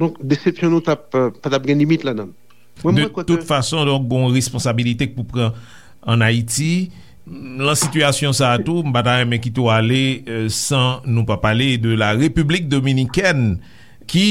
Donk, desepsyon nou t ap, eh, pa t ap gen limit ladan l. Mwen, de mwen kwè tout ke fason, donk, gon responsabilite k pou pran ann Ayiti. Lan sitiyasyon sa a tou, m pa ta renmen kite w ale, eh, san nou pa pale de la Repiblik Dominikèn, ki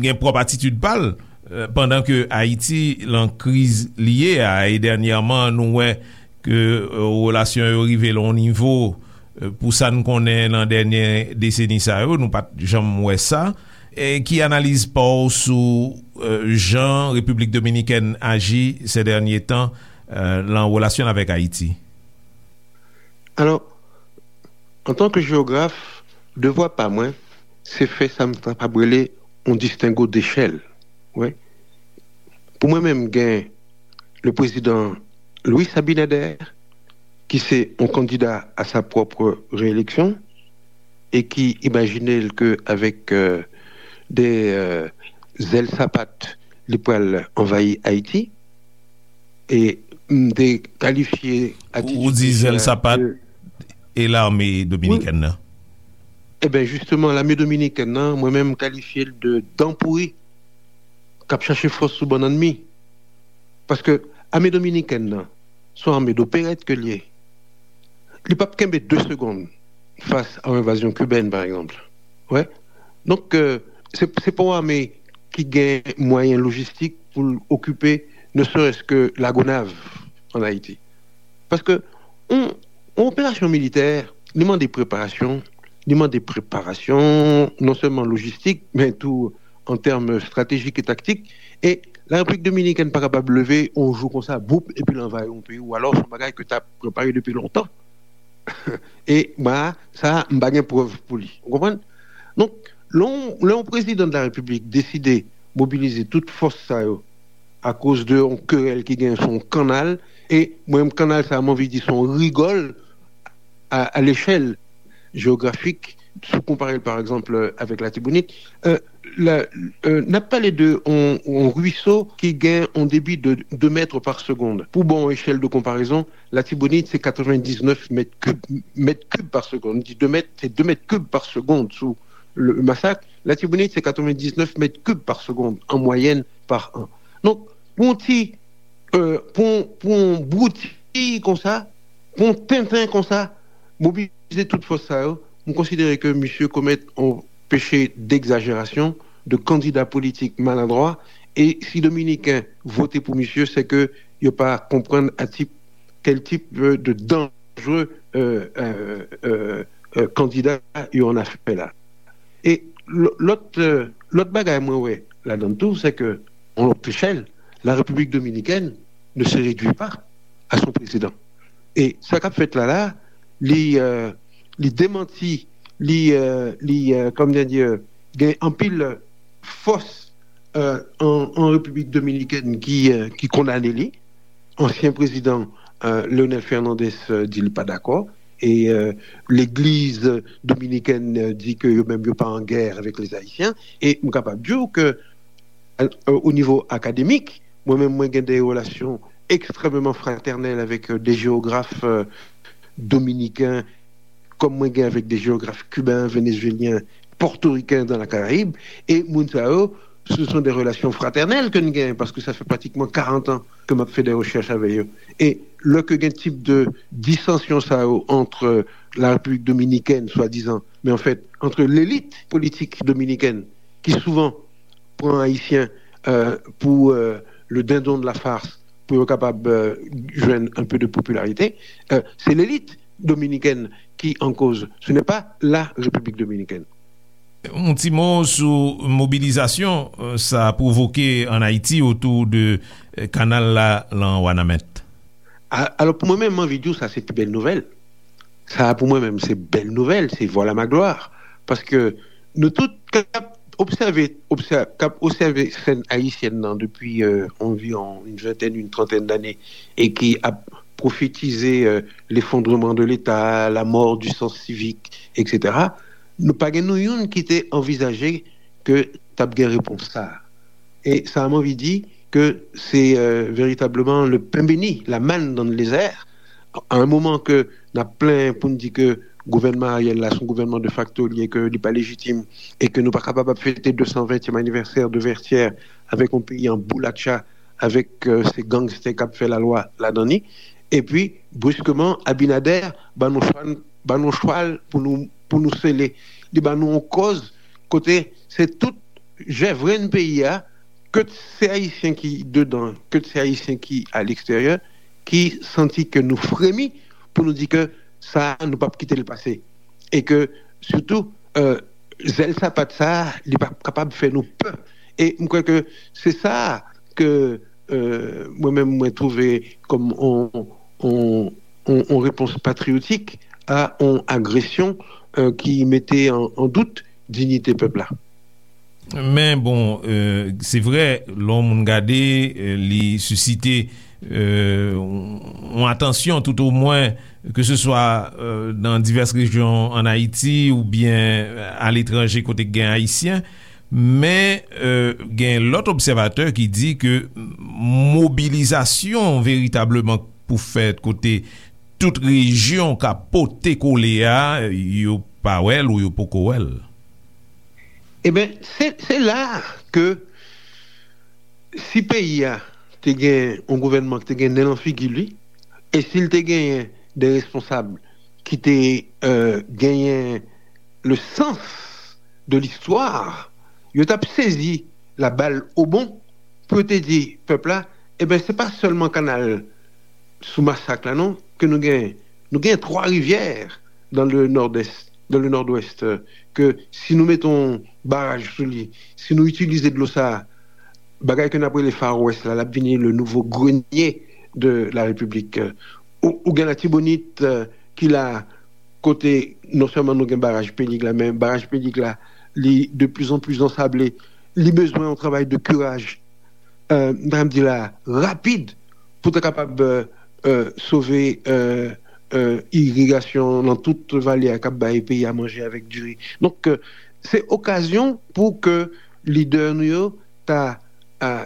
gen pwòp atitid pa l, eh, pandan ke Ayiti lan kriz li ye a, e dènyèman, nou wè ke, eh, relasyon yo rive lan yon nivo, eh, pou sa n konnen lan dènye deseni sa yo, nou pa t janm wè sa. E ki analiz pa w sou, eh, jan Repiblik Dominikèn aji sè dènye tan, eh, lan relasyon l avèk Ayiti? Alò, antanke jewograf, devwa pa mwen, se fè sa m kapab rele yon distengo dechèl. Wi. Pou mwen menm, gen le président Luis Abinader, ki se yon kandida a sa pwòp reyeleksyon, e ki imajine l ke avèk, euh, de, euh, zèl sapat, li pral anvayi Ayiti, e m te kalifye atitid Ou di zèl sapat e lame dominikèn nan? Eben, jisteman, lame dominikèn nan, mwen menm, m kalifye l de dan pouri k ap chache fòs sou bannann mi. Paske ame dominikèn nan, se yon ame doperèt ke l ye. Li p ap kenbe de segonn fas a yon envazyon kibèn, pa egzanp. Wè. Donk, euh, se, se pa yon ame ki gen mwayen lojistik pou l okipe, ne serait-ce que Lagonav, ann Ayiti. Paske yon, yon operasyon militè, li mande preparasyon, li mande preparasyon non sèlman lojistik, men tou an tèm estratejik e taktik. E Larepiblik Dominikèn pa kapab leve yon jou konsa, boup, epi l anvayi yon peyi, ou alò se yon bagay ke t ap prepare depi lontan. E mwen, sa, m pa gen prèv pou li. Ou konprann? Donk, lè yon, lè yon prezidan de la Repiblik deside mobilize tout fòs sa yo akoz de yon kerèl ki gen sou yon kannal, e mwen menm kannal sa, m anvi di se yon rigòl a, a lechèl jewografik, si w konpare l, pa egzanp, avèk Latibonit, euh, la, euh, n ap pale de yon, yon ruiso ki gen yon debi de de mèt pa segonn. Pou ba w yon echèl de konparezon, Latibonit, se katrevendiznèf mèt kib, mèt kib pa segonn. M di de mèt, se de mèt kib pa segonn sou le Masak. Latibonit, se katrevendiznèf mèt kib pa segonn an mwayèn pa an. Donk, pou yon ti, euh, pou, pou yon bouti konsa, pou yon tenten konsa, mobilize tout fòs sa yo, m konsidere ke misye komèt yon peche degzajerasyon, de kandida politik maladwa, e si Dominiken vote pou misye, se ke yo pa konprann a tip, kèl tip, euh, de danjere, euh, euh, euh, euh, kandida yo ann afè la. E lò-, lòt, euh, lòt bagay mwen wè ladan l tou, se ke, yon lòt echèl, la République dominicaine ne se réduit pas à son président. E sa k ap fèt la la, li, euh, li demanti, li, euh, li, euh, kòman di, gen anpil fòs, euh, an, an Repiblik Dominikèn ki, euh, ki kondane li. Ansyen prezidan, euh, Leonel Fernandez, euh, di li pa dakò. E, euh, legliz dominikèn, euh, di ke yo menm yo pa an gè avèk lèzayisyen. E m kapab di w ke euh, au niveau académique. Mwen menm, mwen gen de relasyon ekstrèmeman fratènèl avèk, euh, de jewograf, euh, dominiken, kòm mwen gen avèk de jewograf kiben, venezuelyen, pòtoriken dans la Caraïbe. E moun sa yo, ce sont des relations fraternelles ke n gen, paske sa fè pratikman karant an ke m ap fè de rechèch avè yo. E lè ke gen tip de disansyon sa yo entre la République dominicaine, swadizan, men an fèt, entre l'élite politique dominicaine, ki souvan pran Ayisyen, euh, pou, euh, le dindon de la farce, pou yo kapab, euh, jwenn un peu de popularité, euh, se lelit dominikèn ki an koz, ce n'est pas la République dominicaine. Yon ti mo sou mobilizasyon, euh, sa pwovoke ann Ayiti otou de, euh, kanal la lan Wanament. A-, alò, pou mwen menm, m anvi di w sa se pi bèl nouvèl. Sa a pou mwen menm se bèl nouvèl, se voilà ma gloire. Paske nou tout k ap obsève, obsè-, k ap obsève sèn ayisyèn nan depi, euh, anviwon une vingtaine, une trentaine d'années, e ki ap pwofetize, euh, l'effondrement de l'État, la mort du sens civique, et cetera, nou pa gen nou youn ki te anvizaje ke t ap gen repons sa a. E sa a, m anvi di ke se, euh, veritableman le pain béni, la manne dans le désert. A yon moman ke n ap plenyen pou n di ke gouvènman Ariel la, se yon gouvènman de facto li ye, ke li pa lejitim, e ke nou pa kapab ap fete de san ventyèm anivèsè de Vertières avèk yon peyi an boulatcha, avèk, euh, se gangstè k ap fè lalwa ladan li. Epi, briskeman, Abinader ba nou chwal, ba nou chwal pou nou, pou nou sele. Li ba nou yon kòz kote se tout jèvrenn peyi a, ke se Ayisyen ki dedan, ke se Ayisyen ki a leksteryè, ki santi ke nou fremi pou nou di ke sa a, nou p ap kite l pase. E ke, sitou, euh, zèl sapat sa a, li p ap kapab fè nou pè. E m kwè ke se sa a ke, euh, mwen menm, mwen twouve kòm on, on, on, on repons patriyotik a on agresyon, euh, ki mete an, an dout diyite pèp la. Men bon, euh, se vrè, lè yon moun gade, euh, li sisite, euh, yon atansyon, toutomwen, ke se swa, euh, nan divès rejyon ann Ayiti oubyen aletranje kote k gen Ayisyen. Men, euh, gen lòt obsèvatè ki di ke mobilizasyon veritableman pou fèt kote tout rejyon ka pote kole a, yo pa wè l ou yo poko wè l. Eben, se, se la ke si peyi a te gen yon gouvènman ki te gen nen nan figi li, e si l te genyen de responsab ki te, euh, genyen le sens de l'histoire, yo t ap sezi la balle au bond pou yo te di pèp la, eben, se pa sèlman kanal sou Masak la, non, ke nou genyen. Nou genyen Twa Rivyè dans le nord-est, dans le nord-ouest, euh, ke si nou mete yon baraj sou li, si nou itilize dlo sa a, bagay ke n ap rele Far West la, l ap vini le nouveau grenier de la République. Ou, ou gen Latibonit, euh, ki la, kote non sèlman nou gen baraj Pelig la, men baraj Pelig la, li de plus en plus ansable. Li bezwen yon travay de curage, euh, m ta di la, rapid, pou ta kapab, euh, euh, sove, euh, euh, irigasyon nan tout vale a k ap bay peyi a manje avèk diri. Donk, euh, se okazyon pou ke lidè nou yo ta, euh,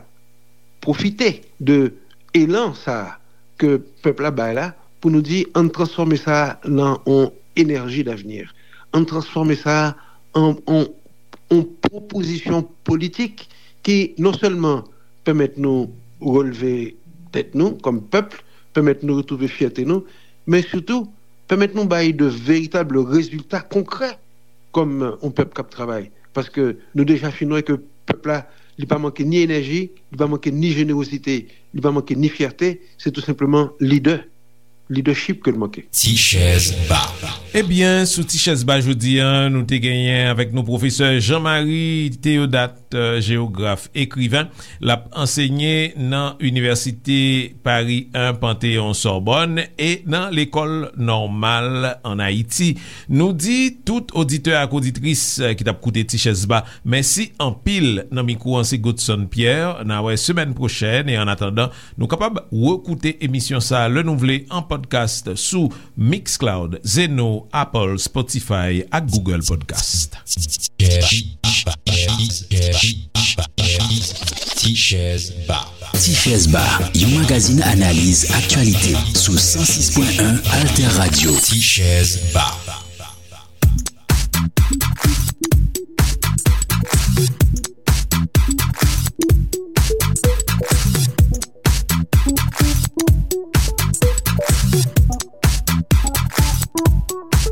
pwofite de elan sa a ke pèp la bay la, pou nou di, ann transfòme sa a nan yon enèji davni. Ann transfòme sa a an, an, an pwopozisyon politik ki non sèlman pèmèt nou releve tèt nou kòm pèp, pèmèt nou retwouve fyète nou, men sitou pèmèt nou bay de veritab rezilta konkrè kòm yon pèp k ap travay. Paske nou deja fin wè ke pèp la, li pa manke ni enèji, li pa manke ni jenerozite, li pa manke ni fyète, se tou senpleman lidè, leadership ke l manke. Ti chèz ba. Ebyen, sou Ti chèz ba jodi a, nou te genyen avèk nou pwofesè Jean Marie Théodat, euh, jewograf, ekriven. L ap ansenye nan Inivèsite Paris un Panthéon Sorbonne e nan Lekòl Nòmal ann Ayiti. Nou di tout oditè ak oditris, euh, ki t ap koute Ti chèz ba, mèsi anpil. Nan mikwo an se Godson Pierre. N a wè semèn pwochèn e annatandan, nou kapab rekoute emisyon sa a lè nou vle an podcast sou Mixcloud, Zeno, Apple, Spotify ak Google Podcast. Chèz Ba. Ti Chèz Ba, yon magazin analiz aktyalite sou san sis pwen en Alter Radio. Ti Chèz Ba.